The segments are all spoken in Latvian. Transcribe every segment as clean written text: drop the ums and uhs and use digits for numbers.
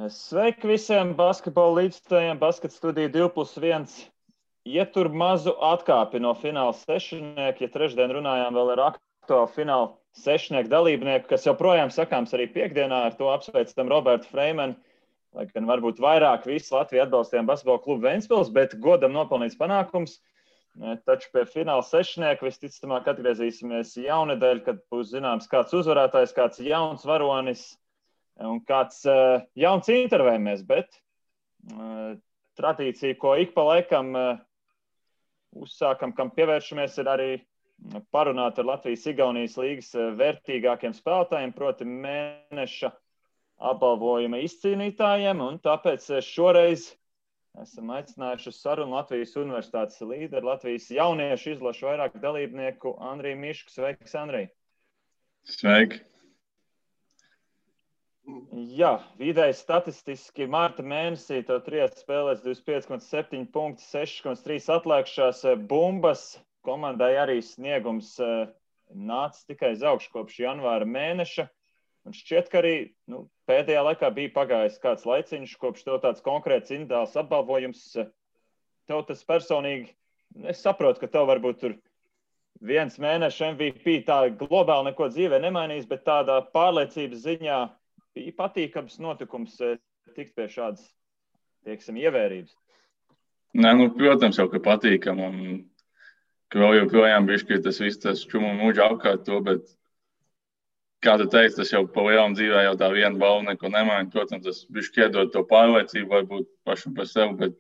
Sveiki visiem basketbola līdzstājiem, Basket studija 2+1. Ietur mazu atkāpi no fināla sešnieku, ja trešdien runājām vēl ar aktuālu fināla sešnieku dalībnieku, kas joprojām sakāms arī piekdienā, ar to apsveicam Robertu Freimanu, lai gan varbūt vairāk visu Latviju atbalstījām basketbola klubu Ventspils, bet godam nopelnīts panākums. Taču pie fināla sešnieku visticamāk atgriezīsimies jaunedēļ, kad būs zināms kāds uzvarētājs, kāds jauns varonis un kāds jauns intervējumēs, bet tradīcija, ko ik pa laikam uzsākam, kam pievēršamies, ir arī parunāt ar Latvijas-Igaunijas līgas vērtīgākiem spēlētājiem, proti mēneša apbalvojuma izcīnītājiem, un tāpēc šoreiz esam aicinājuši uz sarunu Latvijas Universitātes līderi, Latvijas jauniešu izlašu vairāk dalībnieku Andriju Mišku. Sveiks, Andrij! Sveiki! Jā, vidēji statistiski marta mēnesī tev 3 spēlēs 25,7 punkti, 6,3 atlēkšās bumbas. Komandai arī sniegums nāca tikai uz augšu kopš janvāra mēneša. Un šķiet, ka arī pēdējā laikā bija pagājis kāds laiciņš, kopš tev tāds konkrēts individuāls apbalvojums. Tev tas personīgi, es saprotu, ka tev varbūt tur viens mēneša MVP tā globāli neko dzīvē nemainīs, bet tādā pārliecības ziņā bija patīkams notikums tikt pie šādas, teiksim, ievērības. Nē, protams, jau, ka patīkam, un ka vēl joprojām bišķi tas viss tas čumu mūģa apkārt to, bet, kā tu teici, tas jau pa lielam dzīvē jau tā viena balva neko nemaina. Protams, tas bišķi iedod to pārliecību, varbūt pašam par sevi, bet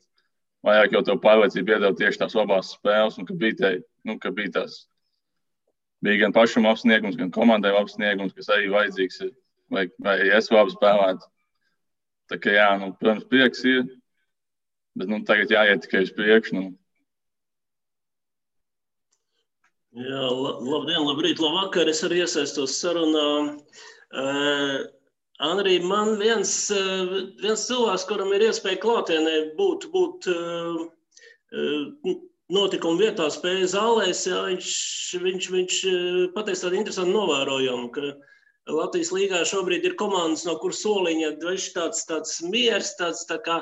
vairāk jau to pārliecību iedod tieši tās labās spēles, un ka bija tās, bija gan pašam apsniegums, gan komandai apsniegums, kas arī vajadzīgs ir. Vai es labi spēlētu. Tā kā jā, protams, prieks ir, bet tagad jāiet tikai uz priekšu. Jā, labdien, labrīt, labvakar, es arī iesaistos sarunā. Andrij, man viens cilvēks, kuram ir iespēja klātienē būt notikuma vietā, spēja zālēs, jā, viņš pateica tādu interesantu novērojumu, ka Latvijas līgā šobrīd ir komandas, no kuras soliņa tāds miers, tāds tā kā,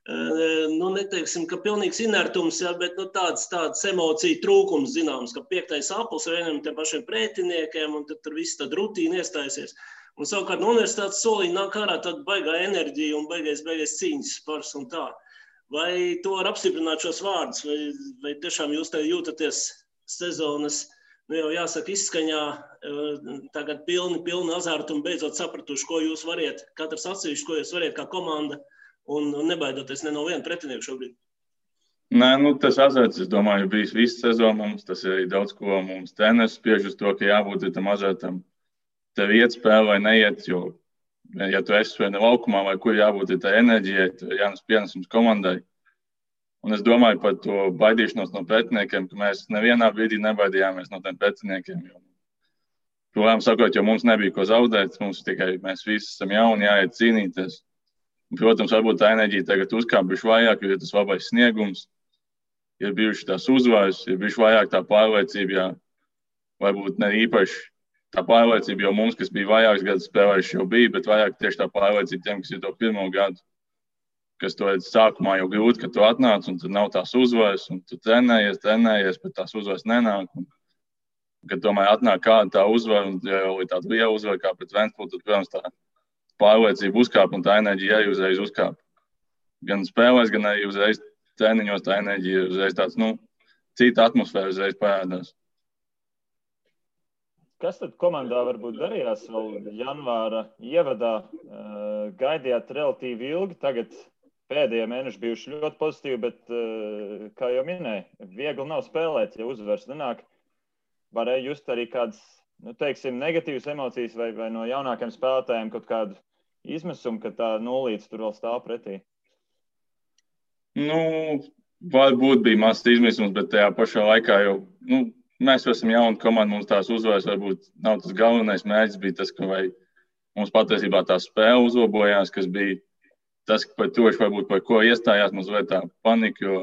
neteiksim, ka pilnīgs inertums, jā, bet tāds emociju trūkums zināms, ka 5. aplis vienam tiem pašiem pretiniekiem, un tad tur viss tad rutīna iestājusies. Un savukārt no universitātes soliņa nāk ārā tāda baigā enerģija un baigais cīņas spars un tā. Vai to var apstiprināt šos vārdus, vai tiešām jūs te jūtaties sezonas, jau jāsaka izskaņā, tagad pilni azartu un beidzot sapratuši, ko jūs variet, katrs atsevišķi, ko jūs variet kā komanda un nebaidoties ne no viena pretinieku šobrīd? Nē, tas azarts, es domāju, bijis visu sezonu mums, tas ir arī daudz, ko mums treneris spiež uz to, ka jābūt tam azartam. Tev iet spēle vai neiet, jo, ja tu esi vai ne laukumā vai kur jābūt tā enerģijai, tad jānes pienesums komandai. Un es domāju par to baidīšanos no pretiniekiem, ka mēs nevienā brīdī nebaidījāmies no tiem pretiniekiem. Protams, sakot, jo mums nebija ko zaudēt, mēs visi esam jauni, jāiet cīnīties. Un, protams, varbūt tā enerģija tagad uzkāpuši vairāk, jo ir tas labais sniegums, ir bijuši tās uzvaras, ir bijuši vairāk tā pārliecība, jā, varbūt ne īpaši tā pārliecība, jo mums, kas bija vairākas gadus spēlējuši, jau bija, bet vairāk tieši tā pārliecība tiem, kas ir to pirmo gadu. Kas to sākumā jau grūti, ka tu atnāc, un tad nav tās uzvaras, un tu trenējies, bet tās uzvaras nenāk. Un, kad tomēr atnāk kāda tā uzvara, un ja jau ir tāda liela uzvara kā pret Ventspili, tad, protams, tā pārliecība uzkāp, un tā enerģija arī uzreiz uzkāp. Gan spēlēs, gan arī uzreiz treniņos tā enerģija uzreiz tāds, cita atmosfēra uzreiz parādās. Kas tad komandā varbūt darījās vēl janvāra ievadā? Gaidījāt relatīvi ilgi, tagad pēdējie mēneši bijuši ļoti pozitīvi, bet, kā jau minēju, viegli nav spēlēt, ja uzvars nenāk. Varēja just arī kādas, teiksim, negatīvas emocijas vai no jaunākiem spēlētājiem kaut kādu izmisumu, ka tā nulīte tur vēl stāv pretī? Varbūt bija mazs izmisums, bet tajā pašā laikā jau, mēs esam jauni komandi, mums tās uzvaras varbūt nav tas galvenais mērķis, bija tas, ka mums patiesībā tā spēle uzlabojās, kas bija tas, par to, varbūt par ko iestājās mazliet tā panika, jo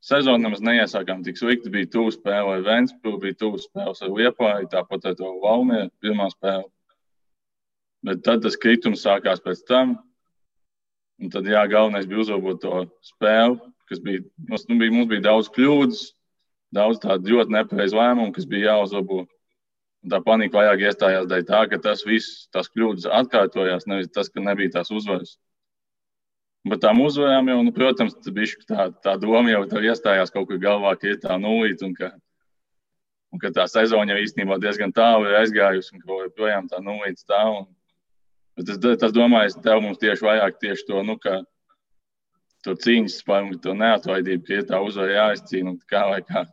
sezonu nemaz neiesākām tik slikti, bija tuvu spēle ar Ventspili, bija tuvu spēles ar Liepāju, tāpat ar to Valmieru pirmā spēle. Bet tad tas kritums sākās pēc tam, Un tad, jā, galvenais bija uzlabot to spēli, kas mums bija daudz kļūdas, daudz tādu ļoti nepareizu lēmumu, kas bija jāuzlabo. Un tā panika vairāk iestājās dēļ tā, ka tās kļūdas atkārtojās, nevis tas, ka nebija tās uzvaras. Bet tām uzvarām jau, protams, tā doma jau tev iestājās kaut kur galvā, ka ir tā nulīte un ka tā sezona jau īstenībā diezgan tālu ir aizgājusi un ka joprojām tā nulīte stāv. Bet es domāju, tev mums tieši vairāk to, ka to cīņas spēju, to neatlaidību, ka ir tā uzvara jāizcīna un kā vai kā.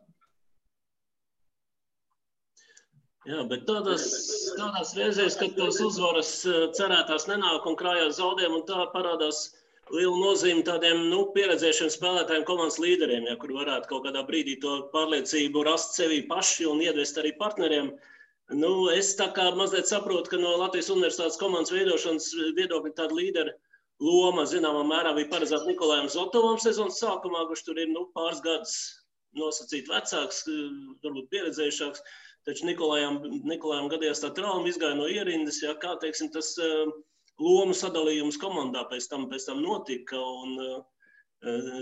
Jā, bet tādās reizēs, kad tās uzvaras cerētās nenāk un krājās zaudējumi, un tā parādās liela nozīme tādiem pieredzējušiem spēlētājiem, komandas līderiem, ja, kur varētu kaut kādā brīdī to pārliecību rast sevī paši un iedvest arī partneriem. Es tā kā mazliet saprotu, ka no Latvijas Universitātes komandas veidošanas viedokļa tāda līdera loma, zināmā mērā, bija paredzēta Nikolajam Zotovam sezonas sākumā, kurš tur ir pāris gadus nosacīt vecāks, varbūt pieredzējušāks. Taču Nikolajam gadījās tā trauma, izgāja no ierindas, ja, kā, teiksim, tas lomu sadalījums komandā pēc tam notika, un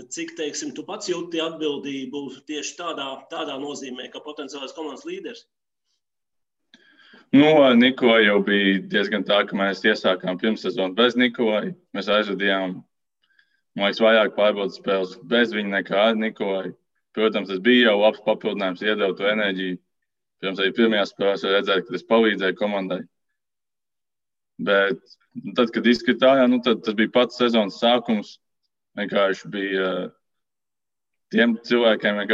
cik, teiksim, tu pats jūti atbildību tieši tādā nozīmē, kā potenciālais komandas līderis? Ar Nikolaju jau bija diezgan tā, ka mēs iesākām pirmssezonu bez Nikolaju. Mēs aizvadījām, man liekas, vairāk pārbaudas spēles bez viņa nekā ar Nikolaju. Protams, tas bija jau labs papildinājums, iedeva to enerģiju. Pirms arī pirmajās spēlēs redzēju, ka tas palīdzēja komandai. Bet tad, kad izskatījā, tad tas bija pats sezonas sākums. Vienkārši bija tiem cilvēkiem,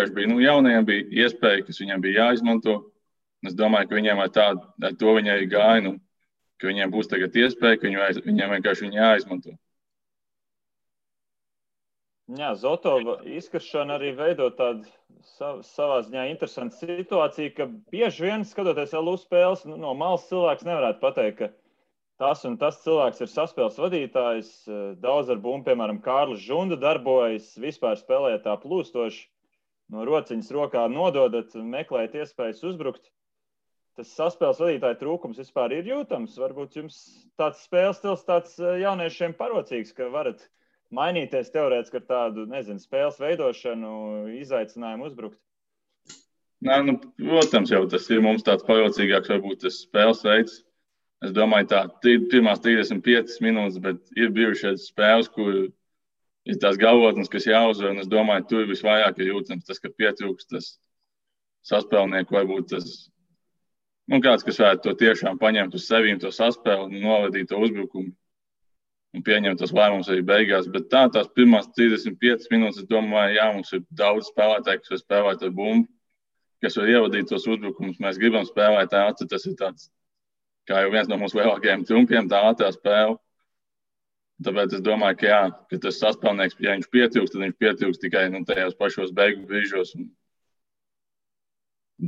jaunajiem bija iespēja, kas viņiem bija jāizmanto. Es domāju, ka viņiem ar to viņi arī gāja, ka viņiem būs tagad iespēja, ka viņiem vienkārši viņi jāizmanto. Jā, Zotova izkaršana arī veido tādu savā ziņā interesantu situāciju, ka bieži vien, skatoties LU spēles, no malas cilvēks nevarētu pateikt, ka tas un tas cilvēks ir saspēles vadītājs. Daudz ar bumbu, piemēram, Kārlis Žunda darbojas, vispār spēlē tā plūstoši, no rociņas rokā nododat, meklēt iespējas uzbrukt. Tas saspēles vadītāja trūkums vispār ir jūtams. Varbūt jums tāds spēles stils tāds jauniešiem parocīgs, ka varat mainīties teorētiski ar tādu, spēles veidošanu, izaicinājumu uzbrukt. Protams, jau tas ir mums tāds parocīgāks, varbūt tas spēles veids. Es domāju, pirmās 35 minūtes, bet ir bijušas spēles, kur ir tās galvotnes, kas jāuzvar, un es domāju, tur visvairāk ir jūtams tas, ka pietrūkst tas saspēlnieku, varbūt tas kāds, kas varētu to tiešām paņemt uz sevīm, to saspēli un novadīt to uzbrukumu un pieņemt tos lēmumus arī beigās. Bet tās pirmās 35 minūtes, es domāju, jā, mums ir daudz spēlētāju, kas var spēlēt ar bumbu, kas var ievadīt tos uzbrukumus. Mēs gribam spēlēt ātri, tas ir tāds, kā jau viens no mūsu lielākajiem trumpiem, tā ātrā spēle. Tāpēc es domāju, ka jā, ka tas saspēlnieks, ja viņš pietrūkst, tad viņš pietrūkst tikai tajos pašos beigu brīžos.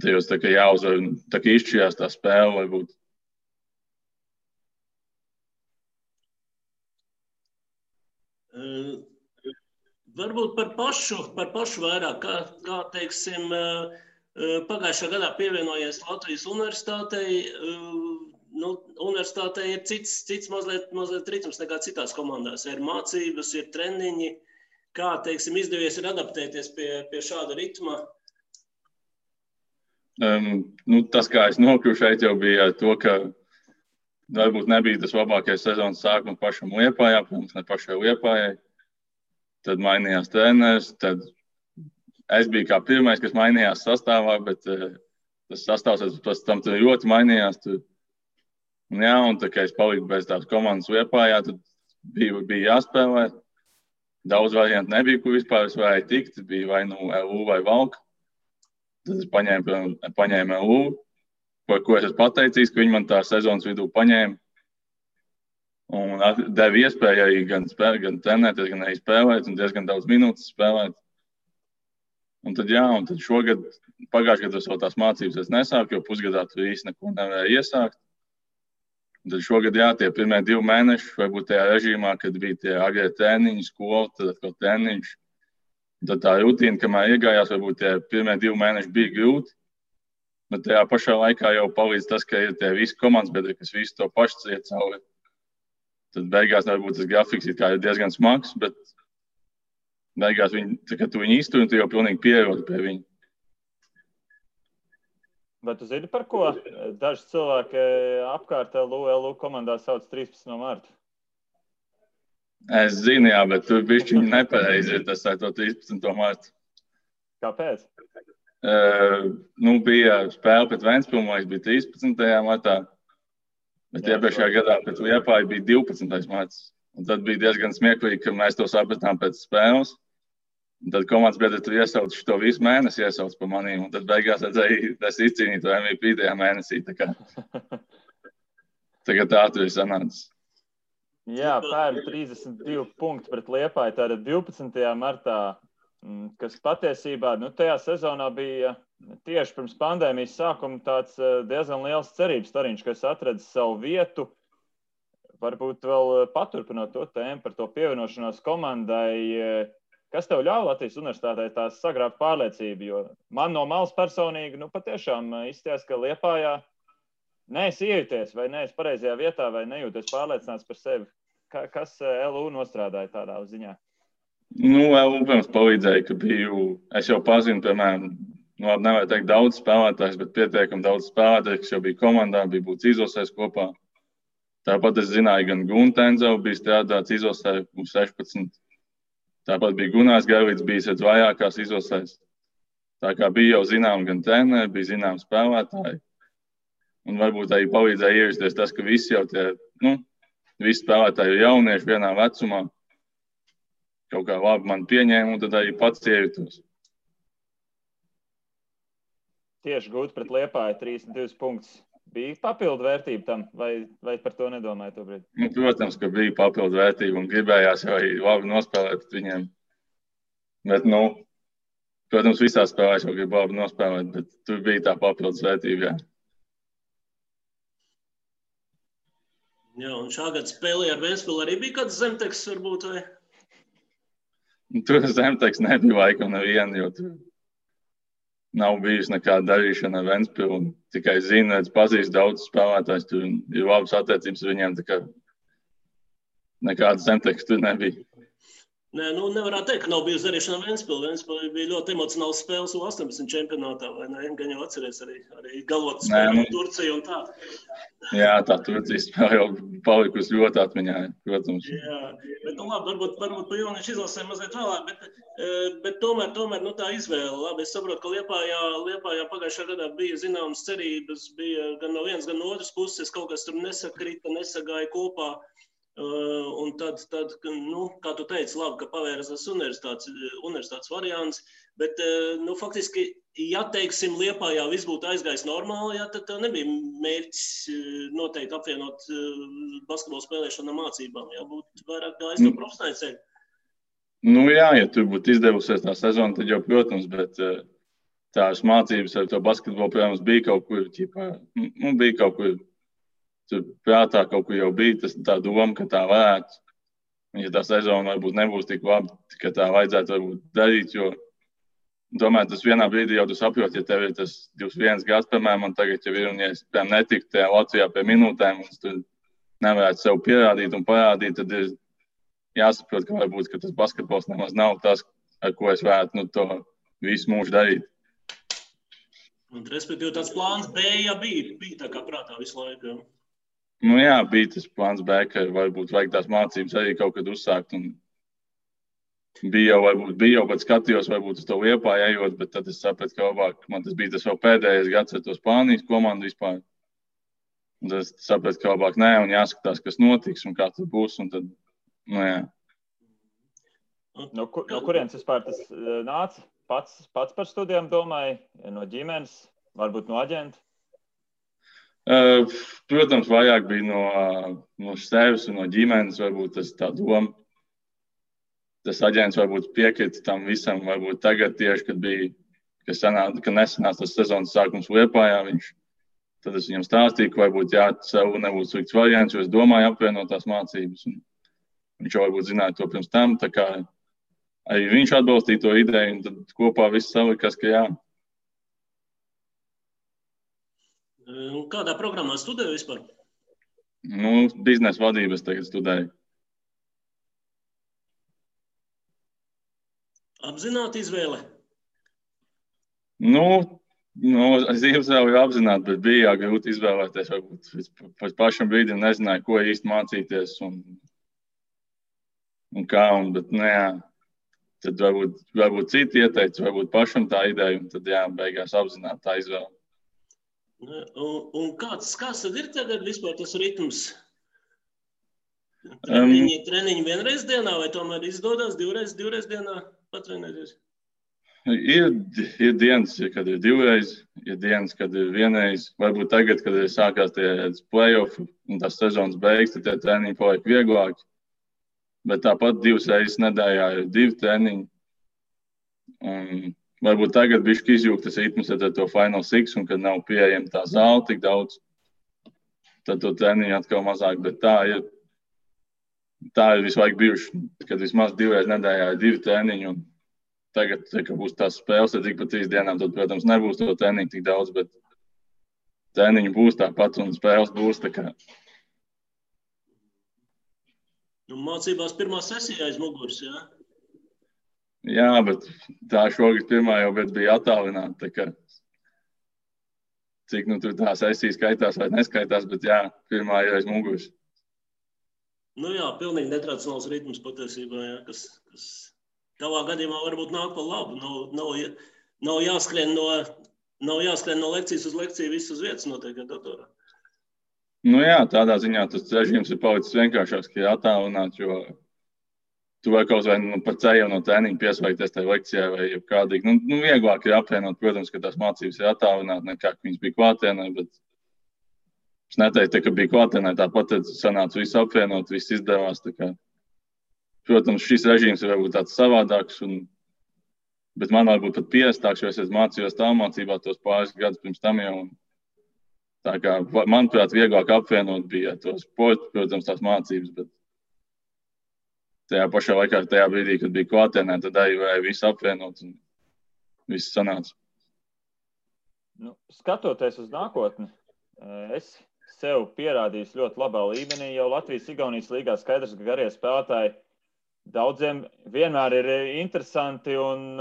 Tajos tā kā jāuzvar, tā kā izšķirās tā spēle, varbūt. Varbūt par pašu vairāk, kā teiksim, pagājušā gadā pievienojies Latvijas Universitātei. Universitātei ir cits mazliet ritms nekā citās komandās. Ir mācības, ir treniņi. Kā, teiksim, izdevies ir adaptēties pie šāda ritma? Tas, kā es nokļuvu šeit, jau bija to, ka varbūt nebija tas labākais sezonas sākums pašam Liepājā, protams, ne pašai Liepājai. Tad mainījās treneris, tad es biju kā pirmais, kas mainījās sastāvā, bet tas sastāvs pēc tam ļoti mainījās. Un tā kā es paliku bez tās komandas Liepājā, tad bija jāspēlē. Daudz variantu nebija, kur vispār es varēju tikt. Bija vai LU vai Valka. Tad es paņēmu LU, par ko es esmu pateicīgs, ka viņi man tā sezonas vidū paņēma. Un deva iespēju arī gan trenēties, gan arī spēlēt, un diezgan daudz minūtes spēlēt. Un tad šogad, pagājušajā gadā vēl tās mācības es nesāku, jo pusgadā tur īsti neko nevarēju iesākt. Un tad šogad, tie pirmie 2 mēneši, varbūt tajā režīmā, kad bija tie agrie treniņi, skola, tad atkal treniņš. Tad tā rutīna, kamēr iegājās, varbūt tie pirmie 2 mēneši bija grūti, bet tajā pašā laikā jau palīdz tas, ka ir tie visi komandas biedri, kas visu to pašu iet cauri. tad beigās varbūt tas grafiks ir diezgan smags, bet beigās kad tu viņu iztur, tu jau pilnīgi pierodi pie viņa. Vai tu zini, par ko daži cilvēki apkārt LU komandā sauc 13. martu? Es zinu, jā, bet tur bišķiņi nepareizi ir tas ar to 13. martu. Kāpēc? Bija spēle pret Ventspili, man bija 13. martā, bet iepriekšējā gadā pret Liepāju bija 12. marts. Un tad bija diezgan smieklīgi, ka mēs to sapratām pēc spēles. Un tad komandas biedri tur iesauc šo visu mēnesi iesauc pa manīm. Un tad beigās redzēju, es izcīnīju to MVP tajā mēnesī. Tagad tā tur ir sanācis. Jā, pērn 32 punkti pret Liepāju, tātad 12. martā, kas patiesībā tajā sezonā bija tieši pirms pandēmijas sākuma tāds diezgan liels cerības stariņš, kas atradis savu vietu. Varbūt vēl paturpinot to tēmu par to pievienošanos komandai, kas tev ļauj Latvijas universitātē tās sagrābt pārliecību, jo man no malas personīgi, patiešām izties, ka Liepājā neesi iejuties vai neesi pareizajā vietā vai nejūties pārliecināts par sevi. Kas LU nostrādāja tādā ziņā? LU, protams, palīdzēja, ka es jau pazinu, piemēram, nevar teikt daudz spēlētājs, bet pietiekami daudz spēlētājs, kas jau bija komandā, bija būts izlasēs kopā. Tāpat es zināju, gan Guntenzau bija strādāts izlasē, 16. Tāpat bija Gunārs Gailīts, bijis vajākās izlasēs. Tā kā bija jau zinām gan treneri, bija zinām spēlētāji. Un varbūt arī palīdzēja ierasties tas, ka visi jau visi spēlētāji ir jaunieši vienā vecumā. Kaut kā labi man pieņēma, un tad arī pats iejutos. Tieši gūt pret Liepāju 32 punktus. Bija papildu vērtība tam, vai par to nedomāju to brīdi? Protams, ka bija papildu vērtība un gribējās jau arī labi nospēlēt pret viņiem. Bet, protams, visās spēlēs jau grib labi nospēlēt, bet tur bija tā papildus vērtība, jā. Jā, un šā gada spēlē ar Ventspili arī bija kāds zemteks, varbūt, vai? Tur zemteks nebija laikam neviena, jo tur nav bijusi nekāda darīšana ar Ventspili. Tikai zinu, pazīst daudz spēlētājs, tur ir labas attiecības ar viņiem, tā kā nekāda zemteks tur nebija. Nē, nevarētu teikt, ka nav bijusi darīšana ar Ventspili. Ventspili bija ļoti emocionāls spēles U18 čempionātā, vai ne? Gan jau atceries arī galvot spēli Turciju un tā. Jā, tā Turcijas spēle jau palikusi ļoti atmiņā, protams. Jā, bet labi, varbūt pa jauniešu izlasēm mazliet vēlāk, bet tomēr tā izvēle. Labi, es saprotu, ka Liepājā pagājušā gadā bija zināmas cerības, bija gan no vienas, gan no otras puses, kaut kas tur nesakrita, nesagāja kopā. Un tad, kā tu teici, labi, ka pavēras tas universitātes variants, bet, faktiski, ja, teiksim, Liepājā viss būtu aizgājis normāli, ja, tad nebija mērķis noteikti apvienot basketbolu spēlēšanu ar mācībām, ja būtu vairāk gājis no profesionāļu ceļa. Jā, ja tur būtu izdevusies tā sezona, tad jau, protams, bet tās mācības ar to basketbolu, protams, bija kaut kur, bija kaut kur. Tur prātā kaut kur jau bija tā doma, ka tā varētu. Ja tā sezona varbūt nebūs tik labi, ka tā vajadzētu varbūt darīt, jo domāju, tas vienā brīdī jau tu saproti, ja tev ir tas 21 gads, piemēram, man tagad jau ir, un ja es, piemēram, netiktu tajā Latvijā pie minūtēm, un es tur nevarētu sev pierādīt un parādīt, tad ir jāsaprot, ka varbūt, ka tas basketbols nemaz nav tas, ar ko es varētu to visu mūžu darīt. Un, respektīvi, tāds plāns B, ja bija tā kā prātā visu laiku. Jā, bija tas plāns B, ka varbūt vajag tās mācības arī kaut kad uzsākt. Un bija jau pat skatījos, varbūt uz to Liepāju ejot, bet tad es sapratu, ka labāk man tas bija tas vēl pēdējais gads ar to Spānijas komandu vispār. Un tad es sapratu, ka labāk nē, un jāskatās, kas notiks un kā tas būs. Un tad, jā. No kurienes vispār tas nāca? Pats par studijām domāju, no ģimenes, varbūt no aģenta? Protams, vairāk bija no sevis un no ģimenes, varbūt tas tā doma. Tas aģents varbūt piekrita tam visam, varbūt tagad tieši, kad nesanāca tas sezonas sākums Liepājā, tad es viņam stāstīju, ka varbūt sev nebūtu slikts variants, jo es domāju apvienot tās mācības. Un viņš jau varbūt zināja to pirms tam, tā kā arī viņš atbalstīja to ideju, un tad kopā viss salikās, ka jā. Kādā programmā studēju vispār? Biznesa vadības tagad studēju. Apzināti izvēle? Es izvēlēju apzināti, bet bija grūti izvēlēties. Varbūt pēc pašam brīdim nezināju, ko īsti mācīties un kā. Bet, tad varbūt citi ieteica, varbūt pašam tā ideja, un tad beigās apzināti tā izvēle. Un kāds tad ir tagad vispār tas ritms? Treniņi vienreiz dienā vai tomēr izdodas divreiz dienā patrenēties? Ir dienas, kad ir divreiz, ir dienas, kad ir vienreiz. Varbūt tagad, kad ir sākās tie play-off un tās sezonas beigas, tad tie treniņi paliek vieglāki. Bet tāpat 2 reizes nedēļā ir 2 treniņi. Un varbūt tagad bišķi izjūgt tas ritms ar to Final Six, un kad nav pieejama tā zāle tik daudz, tad to treniņu atkal mazāk. Bet tā ir visu laiku bijuši, kad vismaz 2 reizes nedēļā ir 2 treniņi. Un tagad, kad būs tās spēles, tad ik pa 3 dienām, tad, protams, nebūs to treniņu tik daudz, bet treniņu būs tāpat un spēles būs tā kā. Mācībās pirmā sesija aiz muguras, jā? Jā, bet tā šogad pirmā jau bija attālināta. Tā kā, cik tur tā sesija skaitās vai neskaitās, bet pirmā ir aiz muguras. Pilnīgi netradicionāls ritms patiesībā, jā, kas tavā gadījumā varbūt nāk pa labu. Nav jāskrien no lekcijas uz lekciju, viss uz vietas notiek ar datorā. Tādā ziņā tas režīms ir palicis vienkāršāks, ka ir attālināts, jo tu vari kaut vai par ceļu no treniņa pieslēgties tajā lekcijā vai kādīgi. Vieglāk ir apvienot, protams, ka tās mācības ir attālināti, nekā viņas bija klātienē, bet es neteiktu, ka bija klātienē, tāpat sanāca visu apvienot, viss izdevās. Protams, šis režīms ir varbūt tāds savādāks, bet man varbūt pat pierastāks, jo es mācījos tālmācībā tos pāris gadus pirms tam jau. Tā kā, manuprāt, vieglāk apvienot bija to sportu, protams, tās mācības, bet tajā pašā laikā, tajā brīdī, kad bija klātienē, tad arī varēja visu apvienot un viss sanāca. Skatoties uz nākotni, es sev pierādīju ļoti labā līmenī, jau Latvijas-Igaunijas līgā skaidrs, ka garie spēlētāji daudziem vienmēr ir interesanti un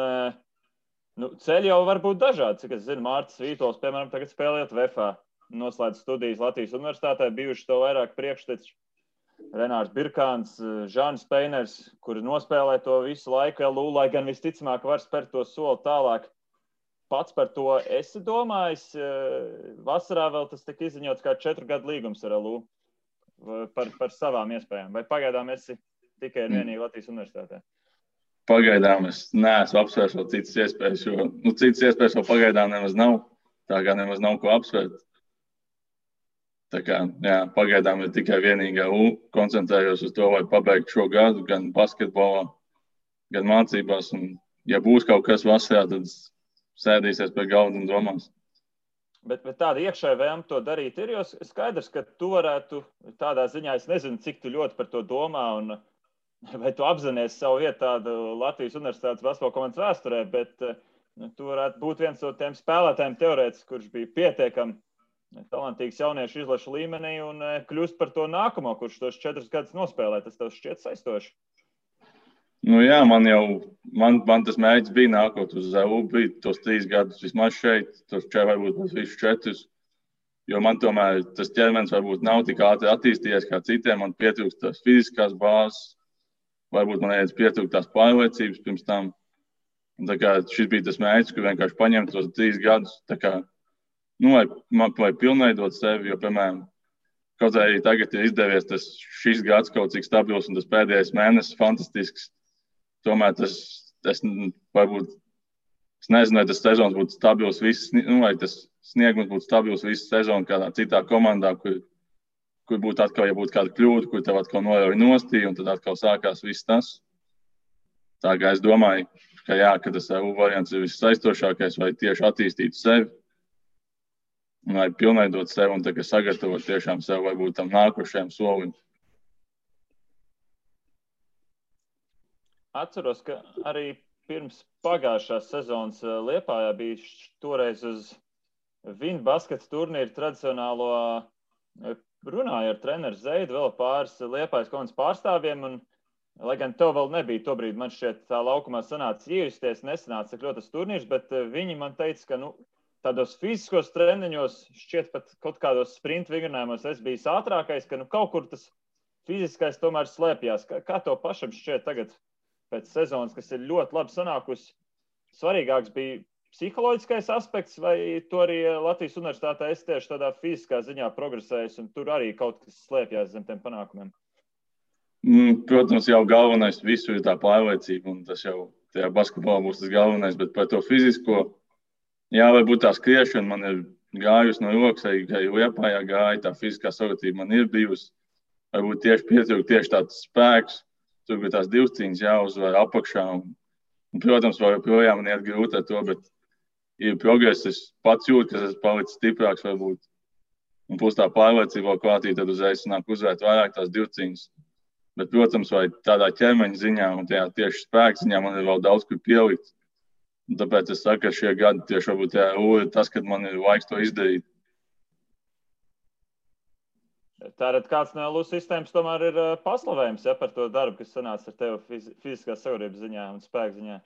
ceļi jau var būt dažādi. Cik es zinu, Mārtis Vītols, piemēram, tagad spēlējot VFA, noslēdz studijas Latvijas universitātē, bijuši to vairāk priekšteči. Renārs Birkāns, Žānis Peiners, kuri nospēlē to visu laiku LU, lai gan visticamāk var spērt to soli tālāk. Pats par to esi domājis. Vasarā vēl tas tika izziņots kā 4 gadu līgums ar LU par savām iespējām. Vai pagaidām esi tikai un vienīgi Latvijas universitātē? Pagaidām es neesmu apsvērs vēl citas iespējas, jo citas iespējas vēl pagaidām nemaz nav. Tā kā nemaz nav ko apsvērt. Tā kā, pagaidām ir tikai vienīgi LU. Koncentrējos uz to, lai pabeigtu šo gadu gan basketbolā, gan mācībās. Un, ja būs kaut kas vasarā, tad sēdīsies pie galda un domās. Bet tāda iekšēja vēlme to darīt ir, jo skaidrs, ka tu varētu tādā ziņā, es nezinu, cik tu ļoti par to domā un vai tu apzinies savu vietu tādu Latvijas universitātes basketbola komandas vēsturē, bet tu varētu būt viens no tiem spēlētājiem teorētiski, kurš bija pietiekami talantīgs jauniešu izlašu līmenī un kļūst par to nākamo, kurš tos 4 gadus nospēlē. Tas tev šķiet saistoši? Man tas mērķis bija nākot uz LU, bija tos 3 gadus vismaz šeit, tos varbūt visus 4. Jo man tomēr tas ķermenis varbūt nav tik ātri attīstījies kā citiem. Man pietrūkst tās fiziskās bāzes, varbūt man pietrūkst tās pārliecības pirms tam. Un tā kā šis bija tas mērķis, ka vienkārši paņemt tos 3 gadus, tā kā lai pilnveidot sevi, jo, piemēram, kaut arī tagad ir izdevies šis gads kaut cik stabils un tas pēdējais mēnesis fantastisks. Tomēr es nezinu, vai tas sezons būtu stabils vai tas sniegums būtu stabils visu sezonu kādā citā komandā, kur būtu atkal, ja būtu kāda kļūda, kur tev atkal norauj nostī un tad atkal sākās viss tas. Tā kā es domāju, ka tas LU variants ir vissaistošākais, vai tieši attīstīt sevi. Lai pilnveidot sevi un sagatavot tiešām sev vai būt tam nākošajam solim. Atceros, ka arī pirms pagājušās sezonas Liepājā bija toreiz uz Vinbaskets turnīru tradicionālo runāju ar treneru Zeidu, vēl pāris Liepājas komandas pārstāvjiem, un, lai gan tev vēl nebija tobrīd, man šķiet, tā laukumā sanāca iejusties, nesanāca tik ļoti tas turnīrs, bet viņi man teica, ka, tādos fiziskos treniņos, šķiet pat kaut kādos sprint vingrinājumos es biju ātrākais, ka, kaut kur tas fiziskais tomēr slēpjās. Kā tev pašam šķiet tagad pēc sezonas, kas ir ļoti labi sanākusi, svarīgāks bija psiholoģiskais aspekts, vai to arī Latvijas universitātē es tieši tādā fiziskā ziņā progresējis, un tur arī kaut kas slēpjās zem tiem panākumiem? Protams, jau galvenais visu ir tā pārliecība, un tas jau tajā basketbolā būs tas galvenais, bet par to fizisko, jā, varbūt tā skriešana man ir gājusi no rokas, arī Liepājā gāja, tā fiziskā sagatavība man ir bijusi, varbūt tieši pietrūka tieši tāds spēks, tur bija tās divcīņas jāuzvar apakšā, un protams, joprojām man iet grūti ar to, bet ir progress, es pats jūtu, ka esmu palicis stiprāks varbūt. Un plus tā pārliecība klātī, tad uzreiz nāk uzvērt vairāk tās divcīņas. Bet, protams, vai tādā ķermeņa ziņā un tajā tieši spēka ziņā man ir vēl daudz, kur pielikt. Un tāpēc es saku, ka šie gadi tieši varbūt ir tas, kad man ir laiks to izdarīt. Tātad kāds no LU sistēmas tomēr ir paslavējums, par to darbu, kas sanāca ar tevi fiziskās sagatavības ziņā un spēka ziņā?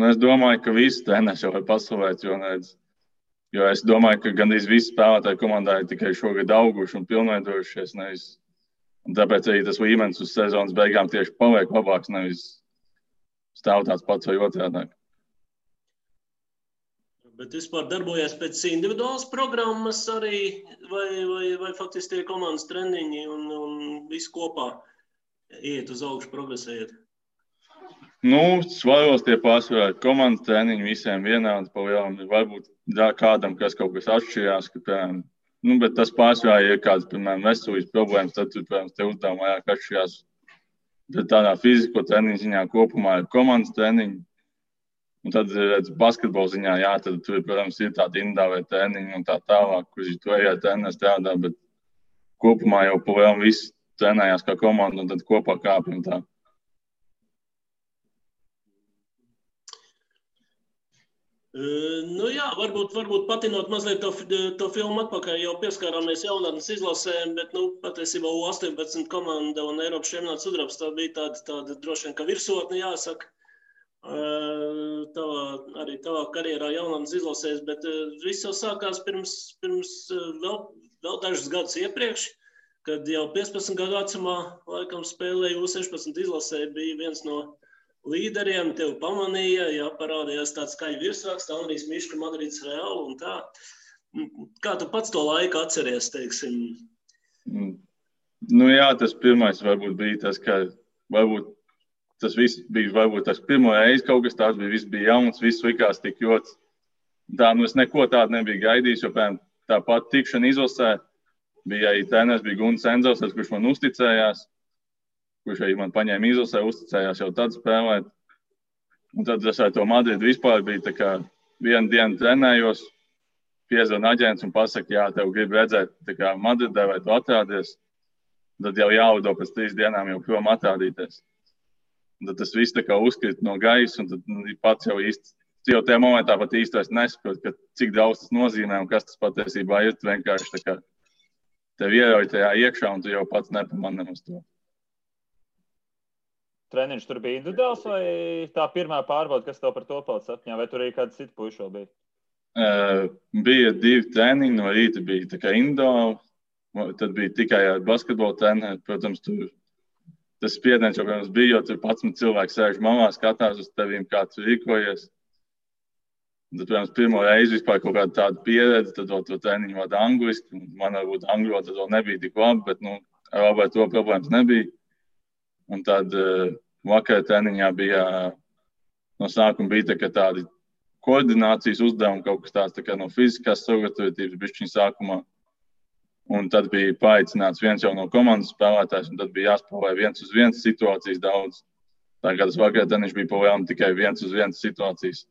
Es domāju, ka visi treneri jau var paslavēt, jo es domāju, ka gandrīz visi spēlētāji komandā ir tikai šogad auguši un pilnveidojušies. Un tāpēc arī tas līmenis uz sezonas beigām tieši paliek labāks, nevis stāv tāds pats vai otrādāk. Bet vispār darbojas pēc individuālas programmas arī, vai faktiski tie komandas treniņi un viss kopā iet uz augšu, progresējot? Svaros tie pārsvarā komandas treniņi visiem vienādi pa lielam. Varbūt kādam, kas kaut kas atšķirās, bet tas pārsvarā ir kāds, piemēram, veselības problēmas, tad, protams, te uzdevumi vairāk atšķirās. Bet tādā fiziko treniņu ziņā kopumā ir komandas treniņi. Un tad, basketbola ziņā, jā, tad tur, protams, ir tādi individuāli treniņi un tā tālāk, kurš tur arī treneris strādā, bet kopumā jau pa lielam visi trenējās kā komanda un tad kopā kāpjam tā. Jā, varbūt patinot mazliet to filmu atpakaļ, jau pieskārāmies jaunatnes izlasēm, bet, patiesībā U18 komanda un Eiropas čempionāts sudrabs tā bija tāda droši vien, ka virsotne jāsaka. Arī tavā karjerā jaunatnes izlasēs, bet viss jau sākās pirms vēl dažus gadus iepriekš, kad jau 15 gadu vecumā laikam spēlēja U16 izlasē, bija viens no līderiem, tev pamanīja, parādījās tāds skaļi virsraksts, Andrijs Miška, Madrids Real un tā. Kā tu pats to laiku atceries, teiksim? Jā, tas pirmais varbūt bija tas, ka varbūt tas viss bija varbūt tas pirmo reizi kaut kas tāds bija, viss bija jauns, viss likās tik ļoti. Es neko tādu nebiju gaidījis, jo tāpat tikšana izlasē bija arī treneris, bija Gunts Enzels, kurš man uzticējās. Kurš arī man paņēma izlasē, uzticējās jau tad spēlēt. Un tad es ar to Madridu vispār bija tā kā vienu dienu trenējos, piezvana aģents un pasaka, jā, tev grib redzēt tā kā Madridē, vai tu atrādies. Tad jau jāudo pēc 3 dienām jau prom atrādīties. Un tad tas viss tā kā uzkrīt no gaisa, un tad pats jau īsti, jau tajā momentā pat īsti vairs nesaprot, ka cik daudz tas nozīmē un kas tas patiesībā ir. Tu vienkārši tā kā tev ierauj tajā iekšā, un tu jau pats nepamani uz to. Treniņš tur bija individuāls vai tā pirmā pārbauda, kas tev par to palicis atmiņā, vai tur arī kāds cits puiši vēl bija? Bija 2 treniņi, no rīta bija tā kā individuāli, tad bija tikai ar basketbola treneri. Protams, tur tas spiediens jau bija, jo tur 11 cilvēki sēž malā, skatās uz tevīm, kā tu rīkojies. Tad, protams, pirmo reizi vispār kaut kāda tāda pieredze, tad vēl to treniņu vada angliski. Man varbūt angļu tad vēl nebija tik labi, bet ar labi to problēmas nebija. Un tad vakar treniņā bija, no sākuma bija tādi koordinācijas uzdevumi, kaut kas tāds tā kā no fiziskās sagatavotības bišķiņ sākumā. Un tad bija paaicināts viens jau no komandas spēlētājs, un tad bija jāspēlē 1-uz-1 situācijas daudz. Tā kā tas vakar treniņš bija pavēlam tikai 1-uz-1 situācijas.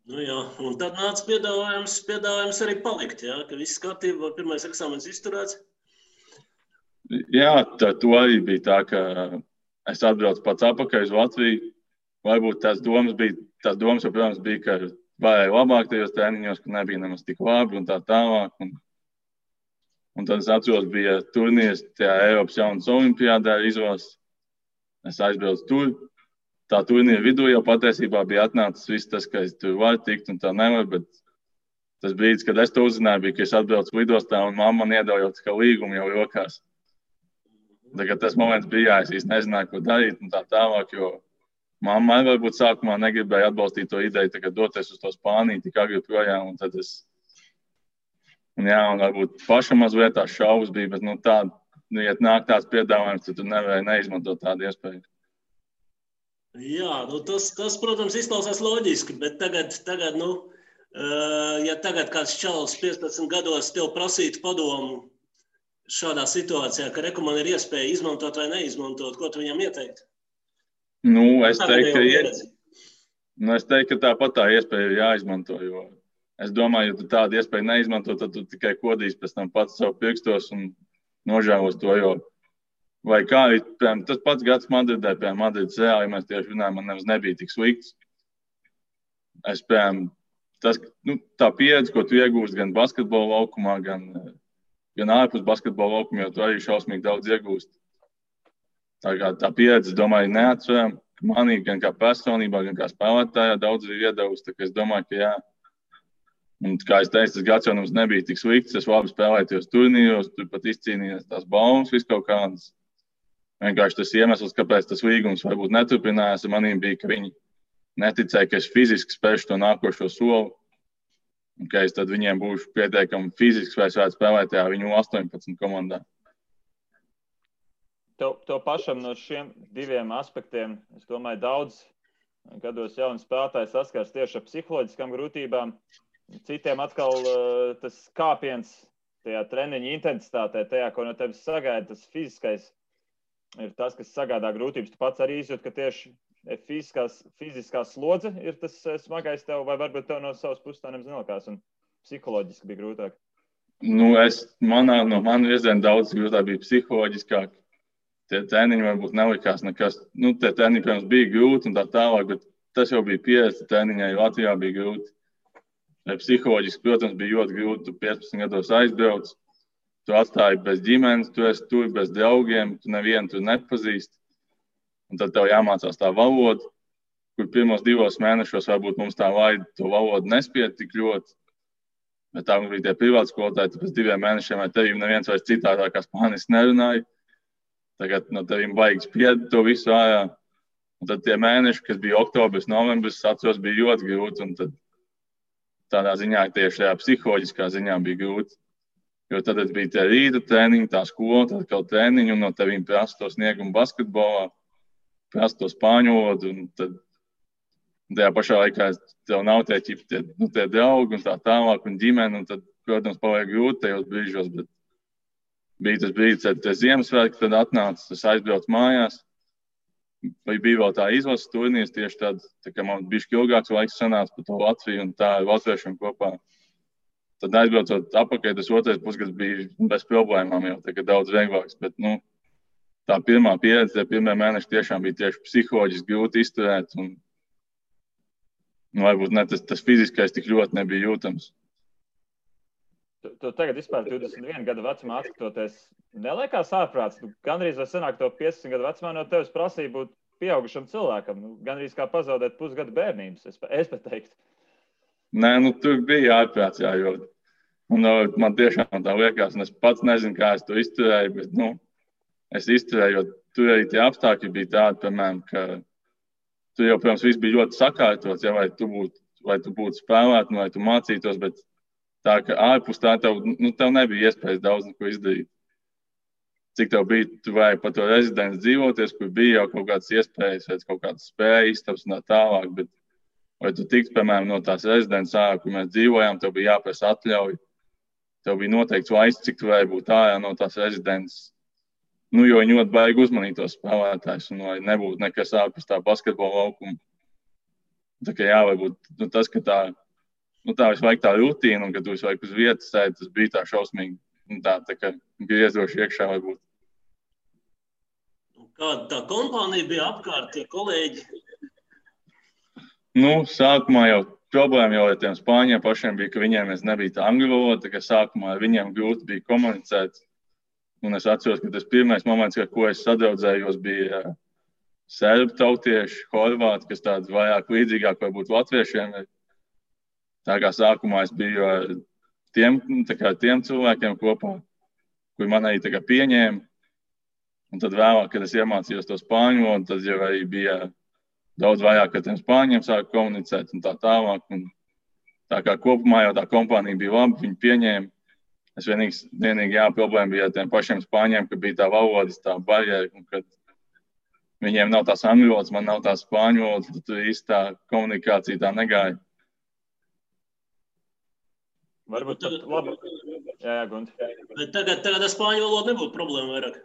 Jā, un tad nāca piedāvājums arī palikt, jā, ka viss kārtība, pirmais eksāmens izturēts. Jā, to arī bija tā, ka es atbraucu pats atpakaļ uz Latviju. Varbūt tās domas jau, protams, bija, ka varēja labāk tajos treniņos, ka nebija nemaz tik labi un tā tālāk. Un tad es atceros, bija turnīrs tajā Eiropas jaunas olimpiādē izlases. Es aizbraucu tur. Tā turnīra vidū jau patiesībā bija atnācis viss tas, ka es tur varu tikt un tā nevaru, bet tas brīdis, kad es to uzzināju, bija, ka es atbraucu lidostā un mamma man iedeva jau kā līgumu jau rokās. Tagad tas moments bija, es īsti nezināju, ko darīt un tā tālāk, jo mamma varbūt sākumā negribēja atbalstīt to ideju, tagad doties uz to Spāniju, tik agri projām, un tad un varbūt pašam mazliet tās šaubas bija, bet ja nāk tāds piedāvājums, tad tu nevarēji neizmantot tādu iespēju. Jā, tas, protams, izklausās loģiski, bet tagad, ja tagad kāds čalis 15 gados tev prasītu padomu šādā situācijā, ka man ir iespēja izmantot vai neizmantot, ko tu viņam ieteiktu? Es teiktu, ka tāpat tā iespēja ir jāizmanto, jo es domāju, ja tu tādu iespēju neizmanto, tad tu tikai kodīsi pēc tam pats savu pirkstos un nožēlos to, jo vai kā, tas pats gads Madridē, piemēram, Madrides Reāli, ja mēs tieši runājam, man nemaz nebija tik slikts. Es, piemēram, tā pieredze, ko tu iegūst gan basketbola laukumā, gan ārpus basketbola laukuma, jo tu arī šausmīgi daudz iegūst. Tā pieredze, es domāju, neatceram, ka manī gan kā personībā, gan kā spēlētājā daudz ir iedevusi, tā kā es domāju, ka jā. Un, kā es teicu, tas gads jau mums nebija tik slikts, es labi spēlēju tajos turnīros, tur pat izcīnījos tās baumas, viss kaut kādas. Vienkārši tas iemesls, kāpēc tas līgums varbūt neturpinājās, manīm bija, ka viņi neticēja, ka es fiziski spēšu to nākošo soli. Un ka es tad viņiem būšu pietiekami fiziski, vai es varētu spēlēt tajā viņu 18 komandā. Tev pašam no šiem diviem aspektiem, es domāju, daudz gados jauni spēlētāji saskars tieši ar psiholoģiskām grūtībām. Citiem atkal tas kāpiens tajā treniņa intensitātē, tajā, ko no tevis sagaida, tas fiziskais ir tas, kas sagādā grūtības. Tu pats arī izjūt, ka tieši fiziskā slodze ir tas smagais tev, vai varbūt tev no savas puses tā nemaz nelikās un psiholoģiski bija grūtāk? No manu virzienu daudz grūtāk bija psiholoģiskāk. Tie treniņi varbūt nelikās nekas. Tie treniņi, protams, bija grūti un tā tālāk, bet tas jau bija pieredze treniņai, Latvijā bija grūti. Psiholoģiski, protams, bija ļoti grūti. Tu 15 gados aizbrauc, tu atstāji bez ģimenes, tu esi tur bez draugiem, tu nevienu tur nepazīsti. Un tad tev jāmācās tā valoda, kur pirmos 2 mēnešos varbūt mums tā laida to valodu nespied tik ļoti. Bet tā bija tie privāti skolotāji, tad pēc 2 mēnešiem vai tevīm neviens vairs citādā kā spāniski nerunāja. Tagad no tevīm vajag spied to visu ārā. Un tad tie mēneši, kas bija oktobris, novembris, atceros, bija ļoti grūti. Un tad tādā ziņā, tieši tajā psiholoģiskā ziņā bija grūti. Jo tad bija tie rīta treniņi, tā skola, tad kaut treniņi, un no tevīm prasa to sniegumu basketbolā, prasa to spāņu valodu, un tad tajā pašā laikā tev nav tie draugi un tā tālāk, un ģimene, un tad, protams, paliek grūti tajos brīžos, bet bija tas brīdis, kad tie Ziemassvētki tad atnāca, es aizbraucu mājās, vai bija vēl tā izlases turnīrs, tieši tā kā man bišķi ilgāks laiks sanāca par to Latviju un tā ar latviešiem kopā. Tad aizbraucot apakaļ, tas otrais pusgads bija bez problēmām jau, tā kā daudz vieglāks, bet, tā pirmā pieredze, tie pirmie mēneši tiešām bija tieši psiholoģiski grūti izturēt un varbūt ne tas fiziskais tik ļoti nebija jūtams. Tu tagad vispār 21 gadu vecumā atskatoties, neliekās ārprāts? Gandrīz vai sanāk to 15 gadu vecumā no tevis prasīja būt pieaugušam cilvēkam. Gandrīz kā pazaudēt pusgadu bērnības, es pat teiktu. Nē, tur bija ārprāts, jā, jo man tiešām tā liekas, un es pats nezinu, kā es to izturēju, bet, es izturēju, jo tur arī tie apstākļi bija tādi, piemēram, ka tur jau, protams, viss bija ļoti sakārtots, ja, vai tu būtu spēlēt, vai tu mācītos, bet tā, ka ārpus tā tev nebija iespējas daudz neko izdarīt. Cik tev bija, tu vajag pa to rezidents dzīvoties, kur bija jau kaut kādas iespējas, vai kaut kādas spējas, istabas un tā tālāk, bet vai tu tiks, piemēram, no tās rezidents ārā, kur mēs dzīvojām, tev bija jāprasa atļauj, tev bija noteikts laiks, cik tu vajag būt ārā no tās rezidents. Jo viņi ļoti baigi uzmanīt tos spēlētājus, un lai nebūtu nekas ārpus tā basketbola laukuma. Tā kā jā, varbūt tas, ka tā visu laiku tā rutīna, un ka tu visu laiku uz vietas sēdi, tas bija tā šausmīgi, tā kā griezoši iekšā varbūt. Kāda tā kompānija bija apkārt, tie kolēģi? Sākumā jau problēma jau ar tiem spāņiem pašiem bija, ka viņiem nebija tā angļu valoda, tā kā sākumā ar viņiem grūti bija komunicēt. Un es atceros, ka tas pirmais moments, ar ko es sadraudzējos, bija serbu tautieši, horvāti, kas tāds vairāk līdzīgāk varbūt latviešiem. Tā kā sākumā es biju ar tiem cilvēkiem kopā, kuri man arī pieņēma. Un tad vēlāk, kad es iemācījos to spāņu valodu, tad jau arī bija daudz vairāk ar tiem spāņiem sāku komunicēt un tā tālāk. Un tā kā kopumā jau tā kompānija bija laba, viņi pieņēma. Es vienīgi problēma bija ar tiem pašiem spāņiem, ka bija tā valodas, tā barjera, un kad viņiem nav tās angļu valodas, man nav tās spāņu valodas, tad tur īsti tā komunikācija tā negāja. Varbūt tad labi. Jā, Gundi. Bet tagad ar spāņu valodu nebūtu problēma vairāk.